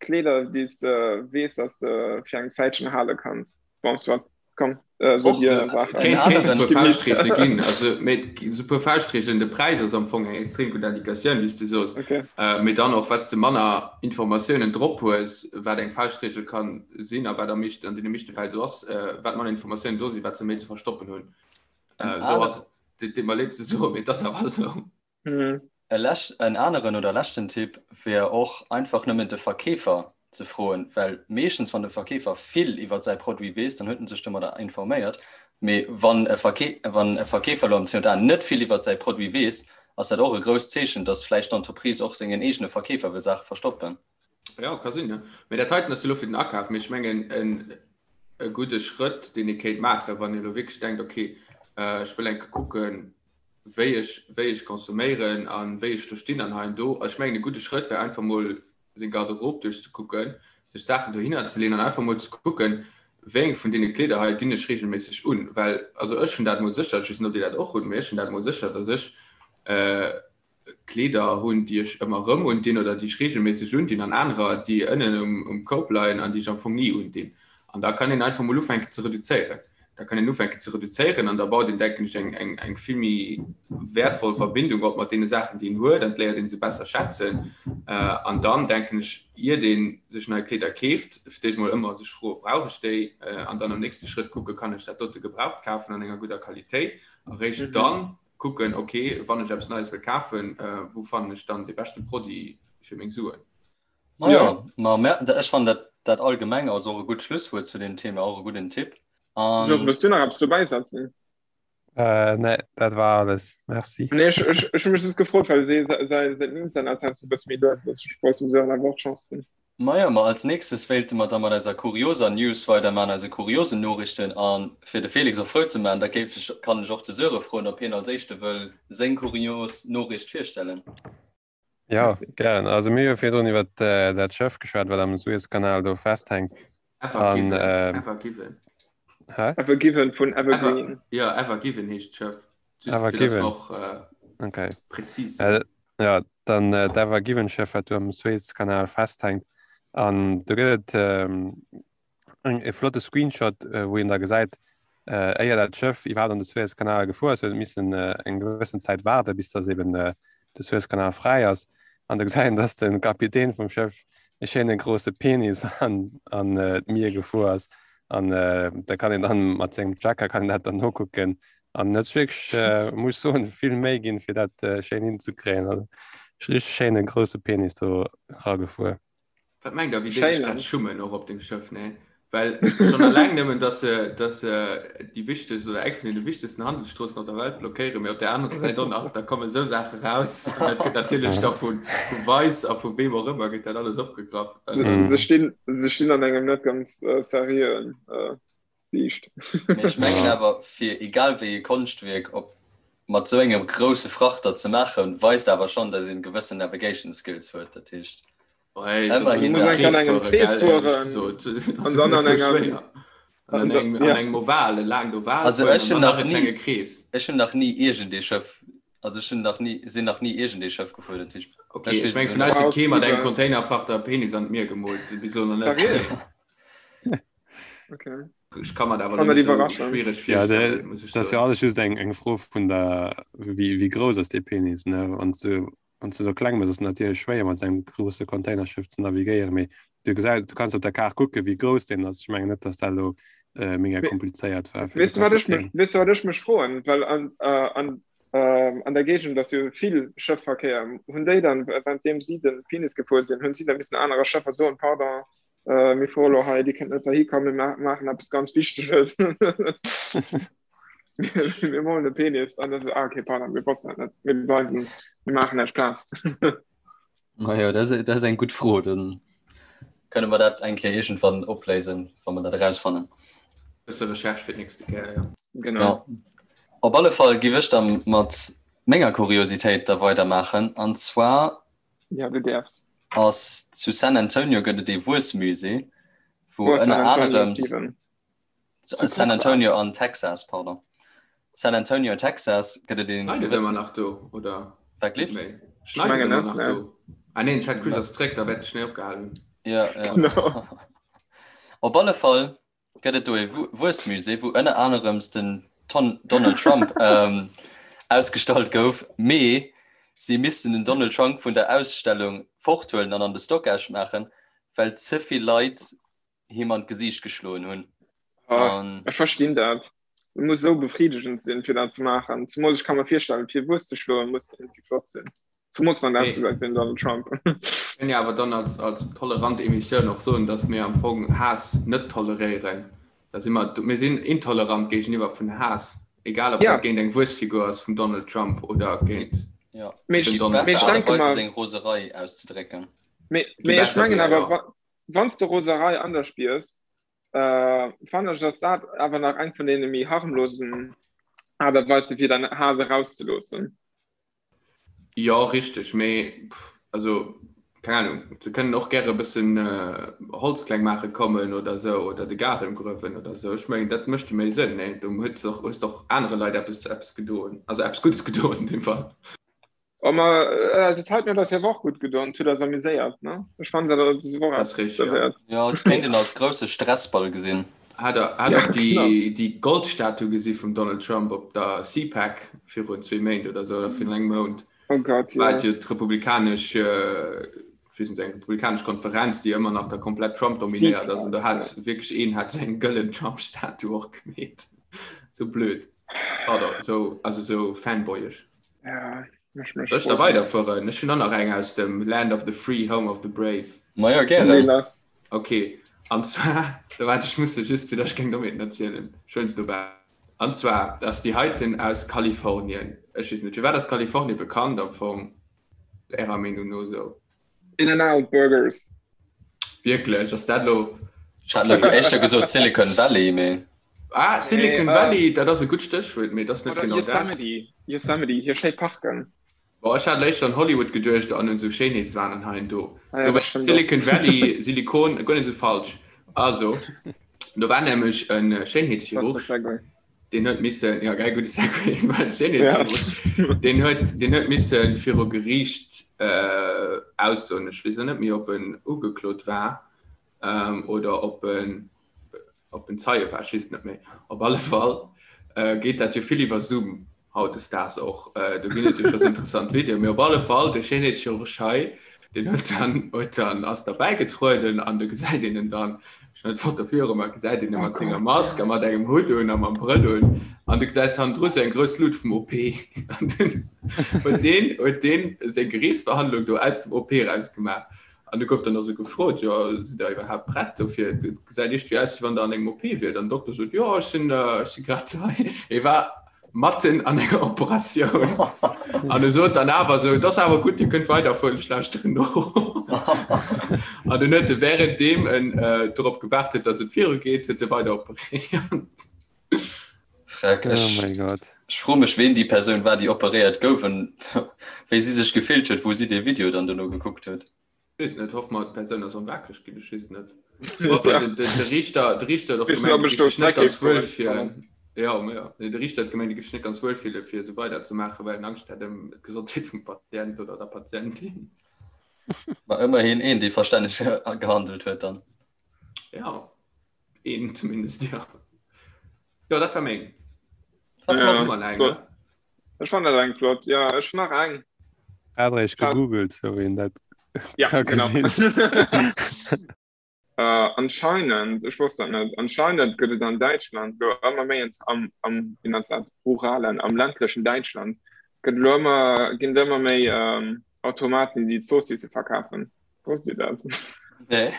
Kleeder, déi s de weess, dass de fir eng Zäitchen hale kanns. Bon, soit, komm, so dir Saachen. Kéint kéint e puer Fauschtreegele ginn, also mee esou puer Fauschtreegelen, de Präis ass am Fong eng extrem gutt Indikatioun, wéi s de soos, Okay. mee dann och wat s de manner Informatiounen drop hues, wat eng Fauschtreegel ka sinn a wat am meeschten, an deene meeschte Fäll esou ass, wat manner Informatiounen do sinn, wat se méi ze verstoppen hunn. Esou ass et, deet mer leed ze soen, mee et ass awer esou. Mhm. E lescht, en aneren oder leschten Tipp wär och einfach nëmmen de Verkeefer ze froen, well meeschtens wann de Verkeefer vill iwwer säi Produit weess, dann huet en sech domadder informéiert. Mee wann e Verkee wann e Verkeefer elo am C&A net vill iwwer säi Produit weess, ass dat och e grousst Zeechen, dass vläicht d'Entreprise och sengen eegene Verkeefer wëll Saache verstoppen. Ja, ka sinn, ja. Mee dat heiten ass elo fir den Akaf. Mee ech mengen en e gudde Schrëtt, deen ee kéint maachen, wann ee elo wierklech denkt, okay, ech wëll eng Kéier kucken, wéi ech, wéi ech consomméieren a wéi ech do stinn an hei an do. Ech mengen, e gudde Schrëtt wär einfach mol seng Garderobe duerchzekucken, sech Saachen dohinner ze leeën an einfach mol ze kucken, wéi eng vun deene Kleeder hei dinn ech reegelméisseg un. Well, also ech hunn dat mol sécher, ech weess net, ob Dir dat och hutt, mee ech hunn dat mol sécher, dass ech Kleeder hunn, déi ech ëmmer erëm undinn oder déi ech reegelméisseg undinn an anerer, déi ënnen um Koup leien an déi ech am Fong ni undinn. An da kann een einfach mol ufänken ze reduzéieren. Da kann een ufänken ze reduzéieren an da baut een, denken ech, eng, eng, eng vill méi wäertvoll Verbindung op mat deene Saachen, déi een huet an et léiert ee se besser schätzen. An dann, denken ech, iert ee sech nei Kleeder keeft, fir d'éischt mol ëmmer sech froen, Brauch ech déi? An dann am nächste Schrëtt kucken, Kann ech dat dote gebraucht kafen an enger gudder Qualitéit? A réischt dann kucken, ok, wann ech eppes Neies wëll kafen, wou fannen ech dann dee beschte Produit fir meng Suen? Ma ja, ma mer, ech fannen dat, dat allgemeng ass och e gutt Schlusswuert zu deem Thema, och e gudden Tipp. An. Georges, wëlls du nach eppes dobäi setzen? Äh, nee, dat war alles. Merci. Nee, ech, ech, ech hu mech just gefrot, well säi, säi, säin Internet heiansdo e bësse méi lues ass. Ech wollt dem Sören awer och d'Chance ginn. Majo, ma als nächstes wéilte mer da mat eiser kurioser News weiderman, eise kuriosen Noriichten. A fir de Felix och frou ze man, da géif ech, kann ech och de Söre froen, ob hien als éischte wëll seng kurios Noriicht virstellen. Jo, gären. Also mir hu jo virdrun iwwer dat Schëff geschwat, wat am Suezkanal do festhänkt. Ever Given, Ever Given. Hä? Ever Given vun Evergreen. Ever, ja, Ever Given heescht d'Schëff. Just Ever fir dass Given. och äh, Okay. präzis sinn. Äh, ja, dann äh, d'Ever Given Schëff, wat do am Suezkanal festhänkt. An do gëtt et ähm, eng, e flotte Screenshot, äh, wou een da gesäit, äh, éier dat Schëff iwwerhaapt an de Suezkanal gefuer ass, huet et missen äh, eng gewëssen Zäit waarden, bis dass eben äh, de Suezkanal fräi ass. An da gesäit een, dass de Kapitän vum Schëff e schéine grousse Penis an, an äh, d'Mier gefuer ass. An äh, da kann een dann mat sengem Tracker kann een dat dann nokucken. An net wierklech, äh, muss ech soen, vill Méi ginn, fir dat äh, schéin hinzekréien. Also, richteg schéine grousse Penis do ragefuer. Wat mengt der, wéi déi sech grad schummen och op dem Schëff, ne? Well schonn alleng nëmmen, dass se, dass se déi wichtegst oder eng vun deene wichtegsten Handelsstroossen op der Welt blockéieren, mee op där anerer Säit och nach, da kommen esou Saache raus an dat gëtt natierlech da vu, vu Vice a vu weem och ëmmer gëtt dat alles opgegraff. Se stinn, se stinn an engem net ganz seriöen Liicht. Mee ech mengen awer, fir egal wéi ee Konschtwierk op mat sou engem grousse Frachter ze maachen, weist awer schonn, datt een gewëssen Navigation Skills huet. Dat heescht, ëmmerhin dat. Muss an engem Krees fueren an dann an engem an engem Oval, e laangt Oval Also ech hunn nach ni, ech hunn nach ni iergend ee Schëff, also ech hunn nach ni, sinn nach ni iergend ee Schëff gefuer, dat heescht, Ok, ech meng vun eis huet kee mat engem Containerfrachter e Penis an d'Mier gemoolt, bis elo nach net. Okay. Ech kann mir dat awer net esou schwiereg virstellen, muss ech soen. Dat ass jo alles just eng eng Fro vun der, wéi wéi grouss ass dee Penis, ne? Wann s du wann s du sou kleng bass, ass et natierlech schwéier mat engem grousse Containerschëff ze navigéieren, mee du gesäis, du kanns op der Kaart kucken, wéi grouss deen ass. Ech mengen net, datt dat elo mega komplizéiert war fir de Weess du wat ech mech, Kapitän. weess du wat ech mech froen, well an an an der Géigend ass jo vill Schëffverkéier. Hunn déi dann, währenddeem si de Penis gefuer sinn, hunn si da missen anerer Schëffer soen, Pardon, Äh, mir fuere lo hei, Dir kënnt net heihi kommen, mir maachen eppes ganz Wichteges. Mir molen e Penis. An da so, ah, okay, pardon, mir wossten dat net. Mir bleiwen, mir maachen näischt Plaz. Majo, dat ass, dat ass eng gutt Fro. Dann kënne mer dat eng Kéier iergendwann opléisen, wa mer dat erausfannen. Bësse Recherche fir d'nächste Kéier, jo. Genau. Ja. Op alle Fall giff ech da mat menger Kuriositéit da weidermaachen. An zwar Ja, du däerfs. Ass zu San Antonio gëtt et ee Wuessmusée, wou ënner anerem San Antonio an Texas, pardon. San Antonio, Texas gëtt et een. Schneit et ëmmer nach do oder? Wat gleeft? Schneit et ëmmer nach do? Ah neen, Ted Cruz ass zréck, da wäert de Schnéi opgehalen hunn. Ja, ja. Op alle Fall gëtt et do ee Wuessmusée, wou ënner anerems den Donald Trump ausgestallt gouf, mee si missten den Donald Trump vun der Ausstellung forthuelen an an de Stockage maachen, well ze vill Leit him an d'Gesiicht geschloen hunn. An Ech verstinn dat. Et muss esou befriedegend sinn, fir dat ze maachen. Zemools ech ka mer virstellen, fir Wuess ze schloen, muss iergendwéi flott sinn. Zemools wann et ausgesäit wéi den Donald Trump. Kënnen jo awer dann als, als tolerant Emissioun och soen, dass mir am Fong Haass net toleréieren. Da si mer, mir sinn intolerant géigeniwwer vun Haass, egal ob dat géint eng Wuessfigur ass vum Donald Trump oder géint den Donald Trump. Besser Aart a Weis seng Roserei auszedrécken. Mee ech mengen awer, wann s de Roserei an der spiers, fannen ech, ass dat awer nach eng vun deene méi harmlosen Aart a Weise fir däin Haass erauszeloossen. Jo, richteg, mee also keng Ahnung, se kënnen och gäre e bëssen Holz kleng maache kommen oder esou oder de Gaarden gruewen oder esou. Ech mengen, dat mécht jo méi Sënn, nee? Do huet och, hues de och anere Leit eppes, eppes gedoen, also eppes Guddes gedoen an deem Fall. Oh, ma dat hat mir das ja och gutt gedoen, huet eis amuséiert, ne? Ech fannen dat ass och eppes derwäert. Jo, et kéint een als grousse Stressball gesinn. Hat der hat och déi déi Goldstatue gesi vum Donald Trump op der CPAC virun zwee Méint oder sou oder virun engem Mount? Oh Gott, jo. War et jo d'republikanesch, ech weess net, eng republikanesch Konferenz, déi ëmmer nach da komplett Trump dominéiert ass. An do hat wierklech een hat sou eng gëllen Trump-Statue och gemeet. Sou blöd. Pardon, sou, also sou fanboyesch. Ja, ech mech Soll ech da weiderfueren? Ech hunn och nach eng aus dem Land of the Free, Home of the Brave. Majo, gären. Ok, an zwar, da waart, ech muss se just, fir datt ech keng Dommheeten erzielen, ech huelen se dobäi. An zwar ass déi heiten aus Kalifornien. Ech weess net, firwat ass Kalifornien bekannt am Fong, Ärer Meenung no esou? In-N-Out Burgers. Wierklech? Ass dat elo. Ech hat elo éischter gesot Silicon Valley, mee. Ah, Silicon Valley, dat ass e gutt Stéchwuert, mee et ass net genau dat. Yosemite, Yosemite, hir schéi Parken. Bon, ech hat éischter un Hollywood geduecht an un esou Schéinheetswahn an hei an do. Do war Silicon Valley, Silikon, guer net esou falsch. Also, do war nämlech e Schéinheetschirurg. Deen huet missen, ja gell, gudde Segway, war Schéinheetschirurg. Deen huet, deen huet missen viru Geriicht äh, aussoen. Ech weess och net méi, ob en ugeklot war ähm, oder ob en, ob en Zeie war, ech weess et net méi. Op alle Fall äh, geet dat jo vill iwwer Zoom hautdesdaags och. Do ginn et jo scho sou interessant Videoen. Mee op alle Fall, de Schéinheetschirurg hei, deen huet dann, huet dann, ass derbäi getrueden an du gesäit een en dann, ech hunn d'Foto viru mer, gesäit een e mat senger Mask a mat engem Hutt un a mam Brëll un an du gesäis hannendru sou eng grouss Lut vum OP. An dunn huet deen, huet deen seng Geriichtsverhandlung do aus dem OP eraus gemaach. An du gouf dann och sou gefrot, jo sidd der iwwerhaapt prett dofir? Et gesäit iergendwéi aus, wéi wann der an engem OP wiert. An den Dokter sot, jo ech sinn, ech si grad hei. E war matten an enger Operatioun. An e sot dann awer sou, et ass awer gutt, Dir kënnt weiderfueren, ech lauschteren no. An dunn huet e wärenddeem en dorop gewaart huet, datt et virugeet, huet e weider operéiert. Freck, Oh ech, mein Gott. ech froe mech, ween déi Persoun war, déi operéiert gouf an wéi si sech gefillt huet, wou si dee Video dann dono gekuckt huet. Weess net, hoffe mer d'Persoun ass erëm waakreg ginn, ech weess et net. Enfin, den, den, de Riichter, de Riichter huet och Weess net, gemengt, ob e ech géif do sech net zeréck ganz géif wuel goen. fillen. Jo, ma jo. Nee, de Riichter huet gemengt, e géif sech net ganz wuel fille fir esou weider ze maachen, well en Angscht hätt ëm d'Gesondheet vum Patient oder der Patientin. Ma ëmmerhin een, dee verstänneg gehandelt huet dann. Ja. Een zumindest, ja. Jo, dat war meng. Wat Ja, flott. Immer eng, so. ne? Ech fand dat eng flott. Ja, ech nach eng. Adrich gegoogelt, so wien dat Ja, ka genau. gesinn. Äh, anscheinend, ech wosst dat net, anscheinend gëtt et an Däitschland lo ëmmer méi ent- am, am, wéi nennt dat, ruralen, am ländlechen Däitschland gëtt lo ëmmer, ginn et ëmmer méi ähm, Automaten, déi Zoossisse verkafen. Wosst Dir dat? Nee.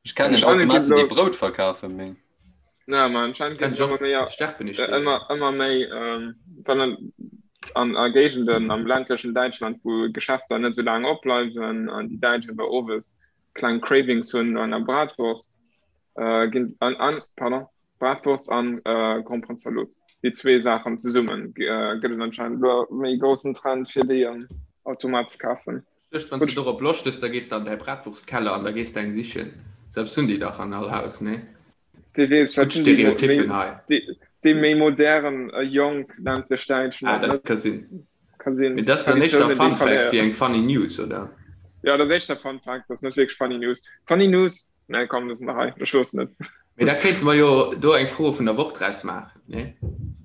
Ech kennen Anscheinend ginn Automaten, déi lo, Brout verkafen, mee. na, ma anscheinend Kenn ginn ich ëmmer och. méi, Sterben ich äh, dir. ëmmer, ëmmer méi, ähm, wann an, an a Géigenden am ländlechen Däitschland, wou Geschäfter net sou laang opbleiwen an déi Däitsch awer owes kleng Cravings hunn no enger Bratwurst, äh, ginn an, an, pardon, Bratwurst an äh, Gromperenzalot. Déi zwee Saachen zesummen äh, gëtt et anscheinend elo méi groussen Trend fir déi am Automat ze kafen. Duecht, wann s de dorop Loscht hues, da gees de an däi Bratwurstkeller an da gees de eng sichen. Sou eppes hunn déi dach an all Haus, nee? Wie weess, Gutt wat hunn déi, mo- méi, Stereotyppen hei. déi, déi méi modern, äh, jonk ländlech Däitschen Ah, och dat net. ka sinn. Ka sinn. Mee dat ass dann éischter Traditiounen, déi Fun Fact wéi verléieren. eng funny News, oder? Ja, dat ass éischter Fun Fact, dat ass net wierklech funny News. Funny News, nee, komm, dat ass nach hei, ech loossen et. Mee da kéinte mer jo do eng Fro vun der Woch draus maachen, nee?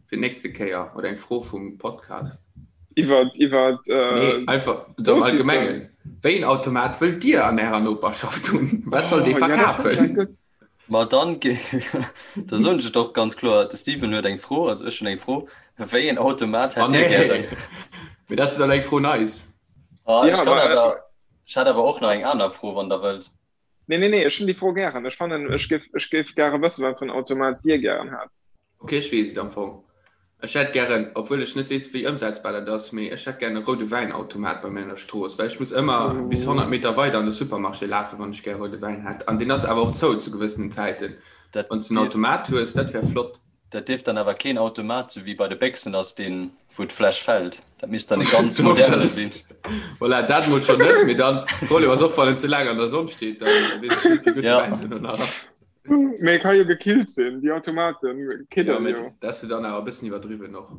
Fir d'nächste Kéier oder eng Fro vum Podcast. Iwwer, iwwer, Nee, äh, einfach sou am Saucissen. Allgemengen. Wéi en Automat wëllt Dir an Ärer Noperschaft hunn? Wat soll dee Oh, ja, dat fand ech eng verkafen? gutt. Ma dann, da soen ech et och ganz kloer, de Steven huet eng Fro, also ech hunn eng Fro, Wéi en Automat Oh hätt Dir nee, gären? mee dat ass dann eng Fro nice. Ah, Ja, ech kann ma, äh, awer, ech hätt awer och nach eng aner Fro, wann Der wëllt. Nee, nee, nee, ech hunn déi Fro gären. Ech fannen, ech géif, ech géif gäre wëssen, wat fir en Automat Dir gären hätt. Ok, ech weess et am Fong. Ech hätt gären, obwuel ech net weess, wéi ëmsetzbar dat ass, mee ech hätt gären e roude Wäinautomat bei mir an der Strooss, well ech muss ëmmer bis 100 Meter weider an de Supermarché lafen, wann ech gär roude Wäin hätt. An deen ass awer och zou zu gewëssenen Zäiten. Dat Wann s de en dierf. Automat hues, dat wär flott. Dat dierf dann awer keen Automat sou wéi bei de Béchsen ass, deen wou d'Fläsch fällt. Dat misst dann e ganz moderne sinn. Voilà, dat mol schonn net, mee dann, Problem ass och, wann en ze laang an der Sonn steet, dann weess ech net, wéi gutt de Ja. Wäin duerno nach ass. Mee e ka jo gekillt sinn, déi Automaten Jo, kidden mee jo. dat ass jo dann awer e bëssen iwwerdriwwen och.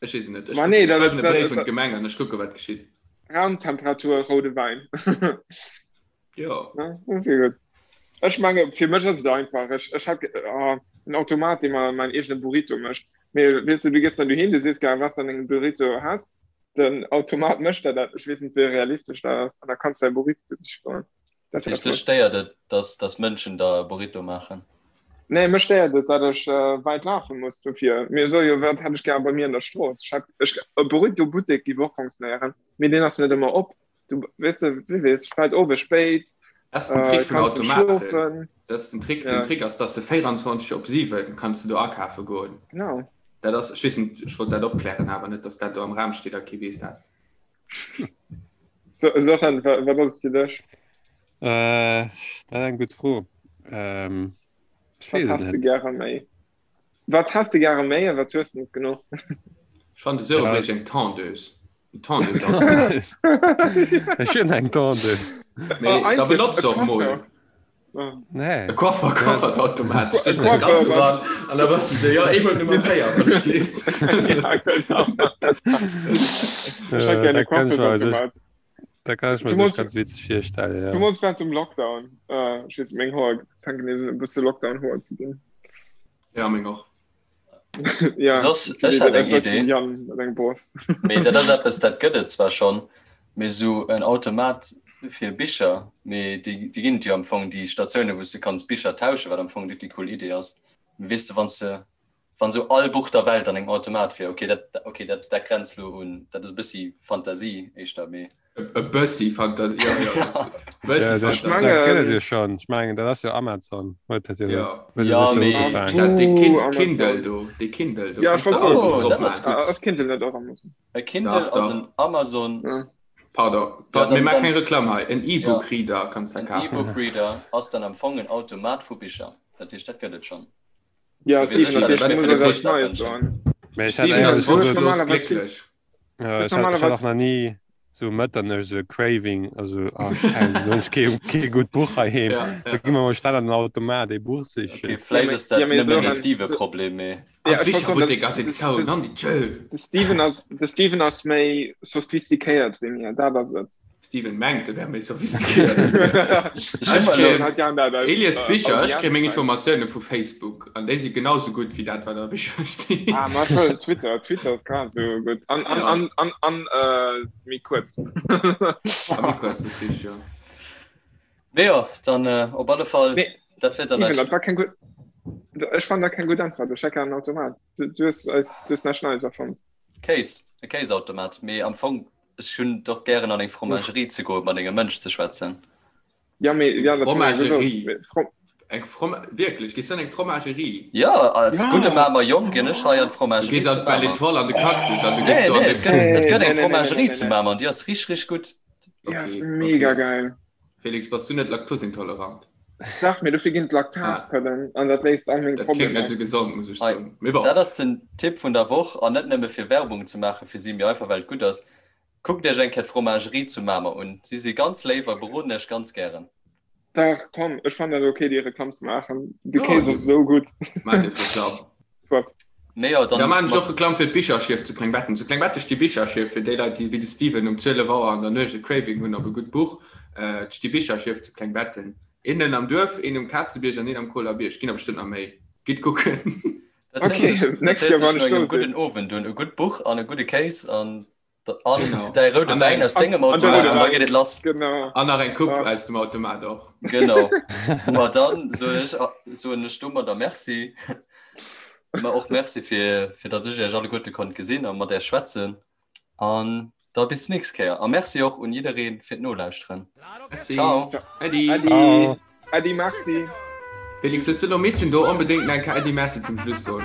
Ech weess et net. Ech Ma kucken, nee, ech dat, schreiwen e dat, Bréif un dat, d'Gemeng an ech kucke wat geschitt. Raumtemperatur roude Wäin. Jo. Ja, dat ass jo gutt. Ech menge fir mech ass et einfach. Ech, ech hätt oh, en Automat, dee mer mäin eegene Burrito mécht. Mee weess du, du gees dann dohin, du sees gär, wat s de an dengem Burrito häss. Den Automat mécht der dat. Ech weess net, wéi realistesch dat ass. An da kanns du däi Burrito siche goen. Dat Dat wär heescht, dech flott. stéiert et, dass, dass Mënschen der e Burrito maachen? Nee, mech stéiert et, dat ech äh, wäit lafe muss dofir. Mir soe jo, wat hätt ech gär bei mir an der Strooss. Ech hätt, ech, e Burrito-Buttek géif och fonctionnéieren, mee deen ass net ëmmer op. Du weess de, wie weess, vläit owes spéit, Dat ass den Trick äh, vun kanns net Automaten. schlofen. Dat ass den Trick. Den Ja, Trick ass, dass de 24 op 7 kanns du do akafe goen. genau. Dat ass, ech weess net, ech wollt dat opklären, awer net, dass dat do am Raum steet a kee weess dat. So, Sören, wa, wat ass et fir dech? Äh, dat ass eng gutt Fro. Ähm, ech Wat weess et häss de net. gäre méi? Wat häss de gäre méi a wat hues de net genuch? Ech fannen de Sören Ja. bréicht eng Tondeuse. En Tondeuse-Automat. Ech hunn eng Tondeuse. Mee Oh, da eigentlech benotz e se och mol. Coiffeur. Oh. Nee. E Coiffer, Coiffersautomat. E Stéchs deng Coiffeur, Katz wat? eran an da bass du sou, jo, eemol Nummer 4, wann ech gleeft. Ja, genau. Ech hätt Äh, gär e dat kann ech mer sech, Coiffersautomat. dat kann ech mer sech Zumools, ganz witzeg virstellen, ja. zumools während dem Lockdown. Äh, ech weess, meng Hoer fänken nees un e bësse Lockdown-Hoer ze ginn. Ja, meng och. Ja, Soss, du ech weess hat et eng bëssen, Idee, Jan, mat engem Boss. mee dat ass eppes, dat gëtt et zwar schonn, mee sou en Automat fir Bicher, mee déi, déi ginn et jo am Fong, déi Statiounen, wou s de kanns Bicher tauschen, wat am Fong déi cool Idee ass. Mee weess de, wann s de, wann sou all Buch der Welt an engem Automat wier, okay, dat, okay, dat, dat grenzt lo un, dat ass e bëssi Fantasie éischter, mee. E bëssi Fantasie, ja, ja, das, bëssi Ja, dat, Fantasie. dat gëtt et jo schonn. Ech mengen, dat ass jo Amazon. Huet dat jo Ja. huet Ja, sech jo mee- ugefaangen. Dat, dee Kin Uh, Amazon. Kindle do, dee Kindle do. Ja, ech Kannst du wollt auch soen. Buch Oh, drop dat ass maachen. gutt. Ah, ass Kindle net och Amazon? E Kindle Dach, ass dach. en Amazon. Ja. Pardon, Ja, pardon, mir dann, maache dann keng Reklamm hei. En ja, E-Book-Reader kanns du en kafen. E-Book-Reader ass dann am Fong en Automat vu Bicher. Dat heescht, dat gëtt et schonn. Ja, Mir Steven, sécher, dat dass heescht, mir du fir muss de eis Gebuertsdag Neies wënschen. soen. Mee ech hat Steven ass éierlech gesot, Du hues wonschlos normalerweis vill. glécklech. ja, Du ech hat, ech hat och normalerweis nach ni sou Mëtternuecht sou e Craving, also ah Scheiße, lo hunn ech kee, kee gutt Buch heiheem. Ja, Da ja. gi mer mol schnell an den Automat ee Buch Okay, sichen. Ja, vläicht mee, ass dat ja, mee nëmmen e Sören, so, Steve-Problem, mee. An ja, ech wollt soen, d'Bicherbuttek dat, ass een de, zou, de, Nandi, tschö. de Steven ass, de Steven ass méi sophistiquéiert wéi mir, dat ass et. Steven mengt, e wär méi sophistiquéiert wéi mir. Ech Ech hu mer elo. kréien, Hat gern dat aus Elias äh, Bicher, ech kréie meng Audienz Informatioune vu Facebook an déi si genau sou gutt wéi dat, wat a Bicher steet. Ah, ma schon, Twitter, Twitter ass grad sou gutt. An, an, Ja, an, an, an äh, méi kuerz. a méi kuerz, dat ass richteg, jo. Mee jo, dann äh, op alle Fall, Nee, dat wier dann Steven, eis. dat war keng gutt. Ech fand dat keng gutt Äntwert. Ech hätt gär en Automat. Du, du hues eis, du hues näischt Neies erfonnt. Kéis, e Kéisautomat. Mee am Fong, ech hunn et och gären an eng Fromagerie ze goen, mat engem Mënsch ze schwätzen. Ja, mee, Eng ja, dat hu mir jo gesot. Fromagerie. Mee, From Eng From wierklech, gees du an eng Fromagerie? Jo, als gudde ja! Mamer Jong ginn ech hei an Du d'Fromagerie gees zu an d'Belle Mamer. Étoile an de Cactus an du gees Nee, do an nee, de et gëtt, Nee, et gëtt nee, eng nee, nee, nee, nee, Fromagerie nee, zu nee. Mamer an déi ass richteg, richteg gutt. Déi ass Okay, mega okay. geil. Felix, bass du net laktosintolerant? Dach, mee dofir ginn Ah, d'Laktatpëllen an dat léist all meng dat kléngt Problemer. net sou gesond, muss ech Hei, soen. Mee bon. dat ass den Tipp vun der Woch an net nëmme fir Werbung ze maache fir si, mee einfach well et gutt ass. Kuckt iech eng Kéier d'Fromagerie zu Mamer un. Si si ganz léif a beroden iech ganz gären. Dach, komm, ech fannen dat ok, déi Reklamm ze maachen. De Jo, Kéis ass esou gutt. Maacht Dir d'Reklamm. Soit. Mee jo, Da dann maan ech och mat. Reklamm fir d'Bicherschief zu Klengbetten. Zu Klengbetten sti Bicherschief fir déi Leit, déi wéi de Steven um 12 Auer an der Nuecht e Craving hunn op e gutt Buch. Et sti Bicherschief zu Klengbetten. Een am Duerf, een um Kazebierg an een am Koler Bierg. Ginn der bestëmmt nach méi. Gitt kucken. Dat héiert Ok, sech, dat nächst héiert Joer sech wann no ech engem do sinn. gudden Owend un. E gutt Buch an e gudde Kéis an an Genau. däi roude An Wäin eng aus dengem An, an de Automat roude an da geet Wäin, et lass. genau. An nach eng Coupe Ah. aus dem Automat och. Genau. Ma dann soen ech, soen ech domadder Merci. Ma och Merci fir, fir datt ech iech alleguerte konnt gesinn a mat iech schwätzen. An da bis d'nächst Kéier. A Merci och un jidderee fir d'Nolauschteren. Merci. Ciao. Äddi. Äddi. Ciao. Äddi, merci. Felix, hues du elo missen do onbedéngt nach eng Kéier Äddi Merci zum Schluss soen?